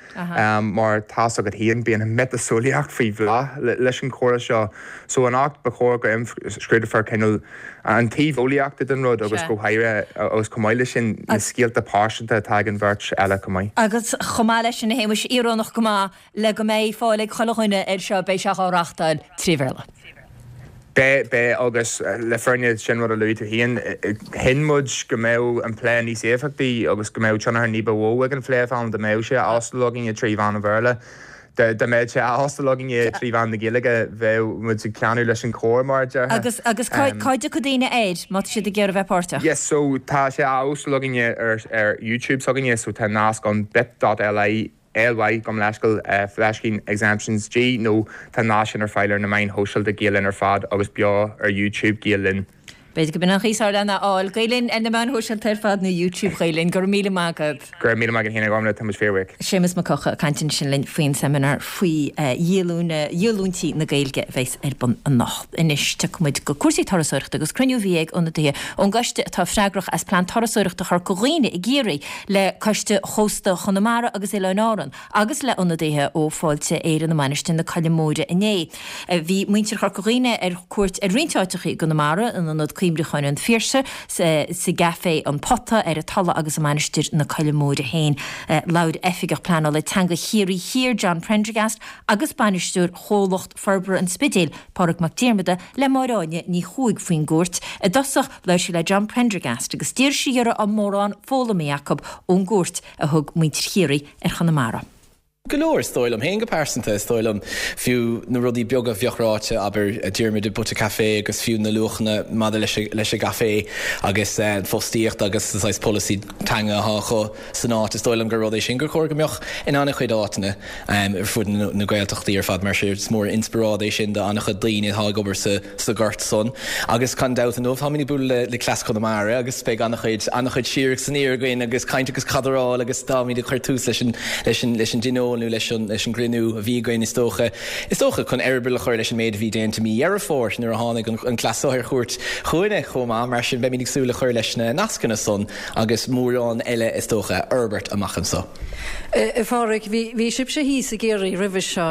mar tá's agat féin bíonn an miotaseolaíocht faoi bhláth leis an chóras seo so anocht ba chóir go imscrúdófar cineál an taobh eolaíochta den rud agus go háirithe agus chomh maith leis sin na scéalta pearsanta atá ag an bheirt eile chomh maith. Agus chomh maith leis sin a Shéamuis, íorónach go maith, Le go mbeidh fáil ag chuile dhuine air seo, beidh sé á reachtáil tré Bhéarla. Beidh, beidh, agus le fírinne, sin rud a luaigh tú féin, chinn muid go mbeadh an plé níos éifeachtaí agus go mbeadh tionchar ní ba mhó ag an phlé dá mbeadh sé á óstáil againne trí mheán an Bhéarla. Dá mbeadh sé á óstáil againne trí mheán na Gaeilge, bheadh muid ag teannadh leis an chór, mar a déarfá. Agus, agus cá, cá dtiocfaidh daoine air, má tá siad ag iarraidh a bheith páirteach? Yes, so tá sé á óstáil againne ar, ar YouTube s'againne, so tá nasc ann bit.ly LY, gabh mo leithscéal, fleiscín exemptions G nó tá an nasc sin ar fáil ar na meáin shóisialta Gael Linn ar fad agus beo ar YouTube Gael Linn. B'fhéidir go b'in an chaoi is fearr lena fháil. Gael Linn ar na meáin shóisialta ar fad nó YouTube Ghael Linn. Go raibh míle maith agat. Go raibh míle maith agat féin a Ghormfhlaith, tá muid fíorbhuíoch. Séamus Mac Eocha ag caint ansin linn faoin seimineár faoi dhíolúine, dhíolúintí na Gaeilge a bheas ar bun anocht. Anois tiocfaidh muid go cúrsaí turasóireachta agus cruinniú a bhí ag ionadaithe ón gcoiste atá freagrach as Plean Turasóireachta Chorca Dhuibhne i gCiarraí le Coiste Chósta Chonamara agus Oileáin Árann agus le ionadaithe ó Fáilte Éireann i Mainistir na Coille Móire inné. Bhí muintir Chorca Dhuibhne ar cuairt ar roinnt áiteacha i gConamara, in Ionad. Cuimhneacháin an Phiarsaigh, sa gCaifé An Pota, ar an Tulaigh agus i Mainistir na Coille Móire féin. Labhair Oifigeach Pleanála Teanga Chiarraí Thiar, John Prendergast, agus Bainisteoir Chomhlacht Forbartha an Spidéil, Pádraig Mac Diarmada, le Máire Áine Ní Chuaig faoin gcuairt. I dtosach, labhair sí le John Prendergast agus d'iarr sí dhe an raibh mórán foghlamtha acu ón gcuairt a thug muintir Chiarraí ar Chonamara. Go leor, is dóigh liom féin go pearsanta. Is dóigh liom fiú na rudaí beaga a bheadh ráite, abair, Diarmuid i bpota caife agus fiú na luachanna maidir leis leis an gcaife agus an fostaíocht agus an saghas polasaí teanga atá acu san áit. Is dóigh liom gur rud é sin gur chóir go mbeadh in an-chuid áiteanna ar fud na Gaeltachtaí ar fad mar is mór an inspioráid é sin do an-chuid daoine atá ag obair sa sa ghort san. Agus gan dabht inniu táimid ag bualadh le cleas Chonamara agus beidh an-chuid, an-chuid siar agus aniar againn agus caint agus cadráil agus táimid ag cur tús leis an, leis an, leis an dtionól nó leis an, leis an gcruinniú a bhí againn is dócha, is dócha chun eireaball a chur leis an méid a bhí déanta mí Dheireadh Fómhair nuair a tháinig an, an cleas so ar chuairt chugainne chomh maith. Mar sin beimid ag súil le cur leis na nascanna san agus mórán eile is dócha a fhorbairt amach anso. A Phádraig, bhí sibhse thíos i gCiarraí roimhe seo.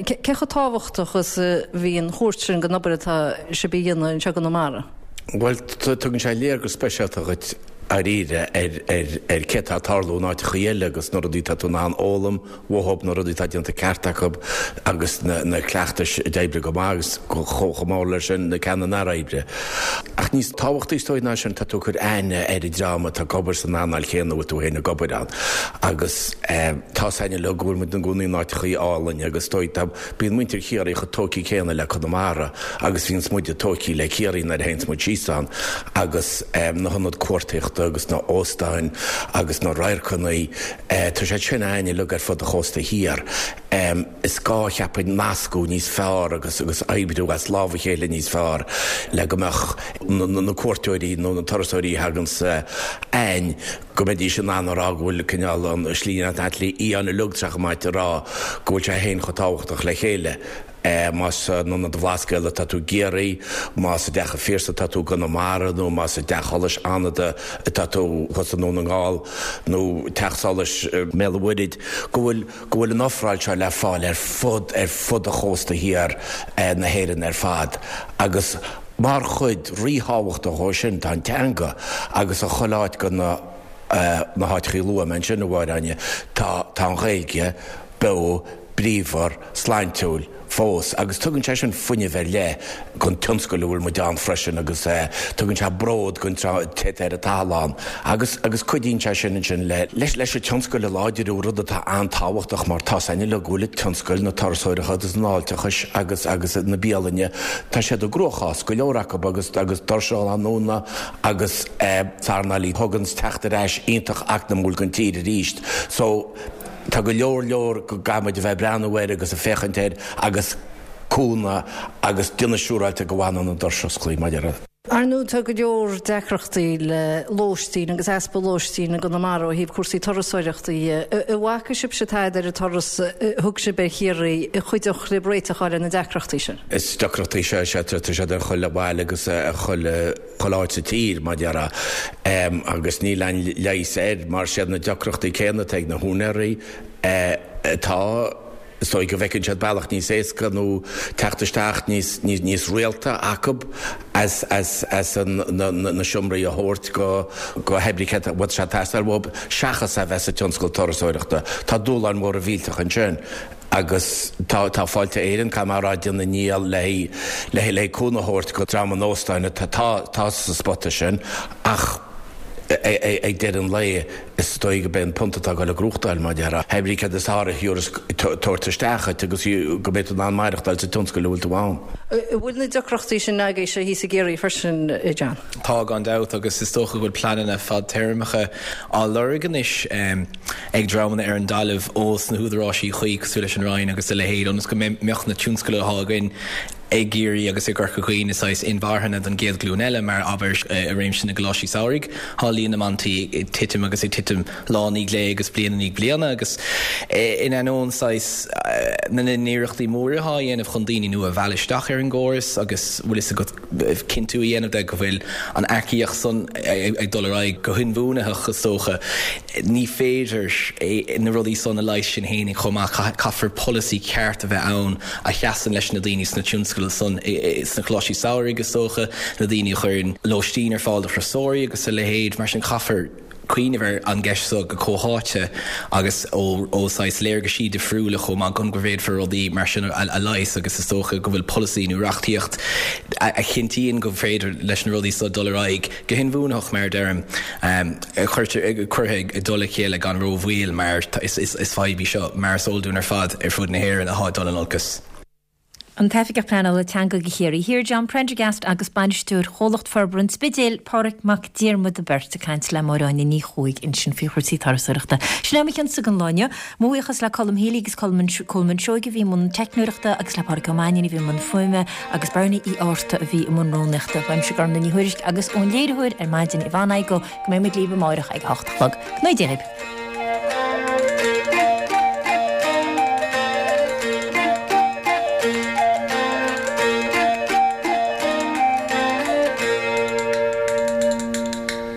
Cé chomh tábhachtach is a bhí an chuairt sin don obair atá sibh a dhéanamh anseo i gConamara? Bhuel, tugann sé léargas speisialta dhuit dáiríre ar cé atá ag tarlú in áiteachaí eile agus na rudaí atá tú in ann fhoghlaim uathub, na rudaí atá déanta ceart acu agus na cleachtais a d'oibrigh go maith agus chomh mór leis sin na ceanna nár oibrigh. Ach níos tábhachtaí is dóigh ná sin, tá tú ag cur aithne ar an dream atá ag obair san earnáil chéanna a bhfuil tú féin ag obair ann agus tá's againn uilig go bhfuil muid ina gcónaí in áiteachaí álainn agus is dóigh tá, bíonn muintir Chiarraí chomh tógtha céanna le Conamara agus bhíonns muide tógtha le Ciarraí nuair a théanns muid síos ann agus na hionaid cuartaíochta agus na hóstáin agus na radharcanna, tá siad sin againn uilig ar fud an chósta thiar. Is gá, cheapfainn, nascadh níos fearr agus agus oibriú as lámh a chéile níos fearr le go mbeadh na cuairteoirí nó na turasóirí a thaganns againn, go mbeidís in ann a rá go bhfuil cineál an tslí an fhiáin uilig tá sé chomh maith a rá go bhfuil sé féin chomh tábhachtach le chéile. Más in Ionad an Bhlascaoid atá tú i gCiarraí, más i dTeach an Phiarsaigh atá tú i gConamara nó más i dTeach Solais Fhánada atá tú thuas i nDún na nGall nó Teach Solais i mBéal an Mhuirthead, go bhfuil go bhfuil an ofráil seo le fáil ar fud ar fud an chósta thiar na hÉireann ar fad agus mar chuid ríthábhachtach dhó sin tá an teanga agus i chuile áit de na na háiteachaí a luaigh mé ansin, a Mháire Áine, tá tá an Ghaeilge beo bríomhar, sláintiúil fós agus tugann sé sin fuinneamh ar leith don tionscal a bhfuil muid ann freisin agus tugann sé bród don té atá ar an tathall ann agus agus cuidíonn sé sin ansin le leis leis an tionscal a láidriú, rud atá an-tábhachtach mar tá's againn uilig go bhfuil an tionscal na turasóireachta agus an fháilteachais agus agus na bialainne, tá siad i gcruachás, go leor acu agus agus doirse á ndúnadh agus earnáil a thugann teacht ar ais iontach eacnamúil don tír arís so Tá go leor leor go gcaithfidh muid a bheith ag breathnú air agus ag féachaint air agus cúnamh agus déanamh siúráilte go bhfanann an doras osclaí, mar a déarfá. Ar ndóigh tá go leor deacrachtaí le lóistín agus easpa lóistín i gConamara ó thaobh cúrsaí turasóireachta dhe. An bhfaca sibhse tada ar an turas a thug sibh ar Chiarraí a chuideodh libh réiteach a fháil ar na deacrachtaí sin? Is deacrachtaí sea, sea, tá siad ar chuile bhaile agus ar chuile. chuile áit sa tír, mar a déarfá, agus níl aon leigheas air mar siad na deacrachtaí céanna atá ag na húinéirí atá, is dóigh go bhfeiceann siad bealach níos éasca nó teacht isteach níos, níos rialta acu as, as, as an, na, na seomraí a thabhairt go, go hoibrithe a bhfuil sé ag teastáil uathu seachas a bheith sa tionscal turasóireachta. Tá dúshláin mhóra mhillteacha ansin. Agus tá tá Fáilte Éireann, caithfidh mé a rá, ag déanamh a ndícheall le le le cúnamh a thabhairt go dream an óstáin atá tá sa spota sin ach ag deireadh an lae is dóigh go b'é an punt atá ag dul ag gnóthachtáil mar a déarfá. Hé brí céard is fearr a thiúrfas tabhairt isteach dhuit agus go mbeidh tú in ann maireachtáil sa tionscal a bhfuil tú ann. An bhfuil na deacrachtaí sin agaibhse thíos i gCiarraí freisin, a John? Tá gan dabht agus is dócha go bhfuil pleananna fadtéarmacha á lorg anois. ag dreamanna ar an dtalamh ós na húdaráisí chuí cosúil leis an Roinn agus a leithéid ionas go mbeadh na tionscail atá againn i gCiarraí agus i gCorca Dhuibhne saghas inmharthana don gcéad ghlúin eile mar abair i réimse na gcoláistí samhraidh tá líon na mboltaí ag titim agus ag titim lá i ndiaidh lae agus bliain i ndiaidh bliana agus in ainneoin saghas na n-iarrachtaí móra atá á dhéanamh chun daoine nua a mhealladh isteach ar an gcóras agus bhfuil fhios agat cinntiú a dhéanamh de go bhfuil an earcaíocht san ag dul ar aghaidh go hinbhuanaitheach, is dócha. Ní féidir. féidir na rudaí san a leigheas sin fhéinig chomh maith. Caithfear polasaí ceart a bheith ann a sheasann leis na daoine sna tionscail san, sna coláistí samhraidh is dócha, na daoine a chuireann lóistín ar fáil do thurasóirí agus a leithéid. Mar sin caithfear cuimhneamh ar an gceist so go comhtháite agus ó ó saghas léargaisí difriúla chomh maith chun go bhféadfar rudaí mar sin a leigheas agus is dócha go bhfuil polasaí nó reachtaíocht a chinntíonn go féidir leis na rudaí so dul ar aghaidh go hinbhuanaitheach mar a deirim cuirtear curtha i dtoll a chéile gan rómhoill mar is fadhb í seo mar is eol dúinn ar fad ar fud na hÉireann atá ag dul in olcas. An tOifigeach Pleanála Teanga do Chiarraí Thiar, John Prendergast agus Bainisteoir Chomhlacht Forbartha an Spidéil, Pádraig Mac Diarmada beirt ag caint le Máire Áine Ní Chuaig ansin faoi chúrsaí turasóireachta. Sin é mo chionsa don lá inniu. Mo bhuíochas le Colm Healy agus Colman Seoige a bhí i mbun teicneoireachta agus le Pádraig Ó Mainnín a bhí i mbun fuaime agus Bernie Uí Fhátharta a bhí i mbun rúnaíochta. Uaimse Gormlaith Ní Thuairisg agus ón léiritheoir ar maidin Yvonne Igoe go mbeidh muid libh amáireach ag a hocht a chlog. Go ngnóthaí Dia dhaoibh.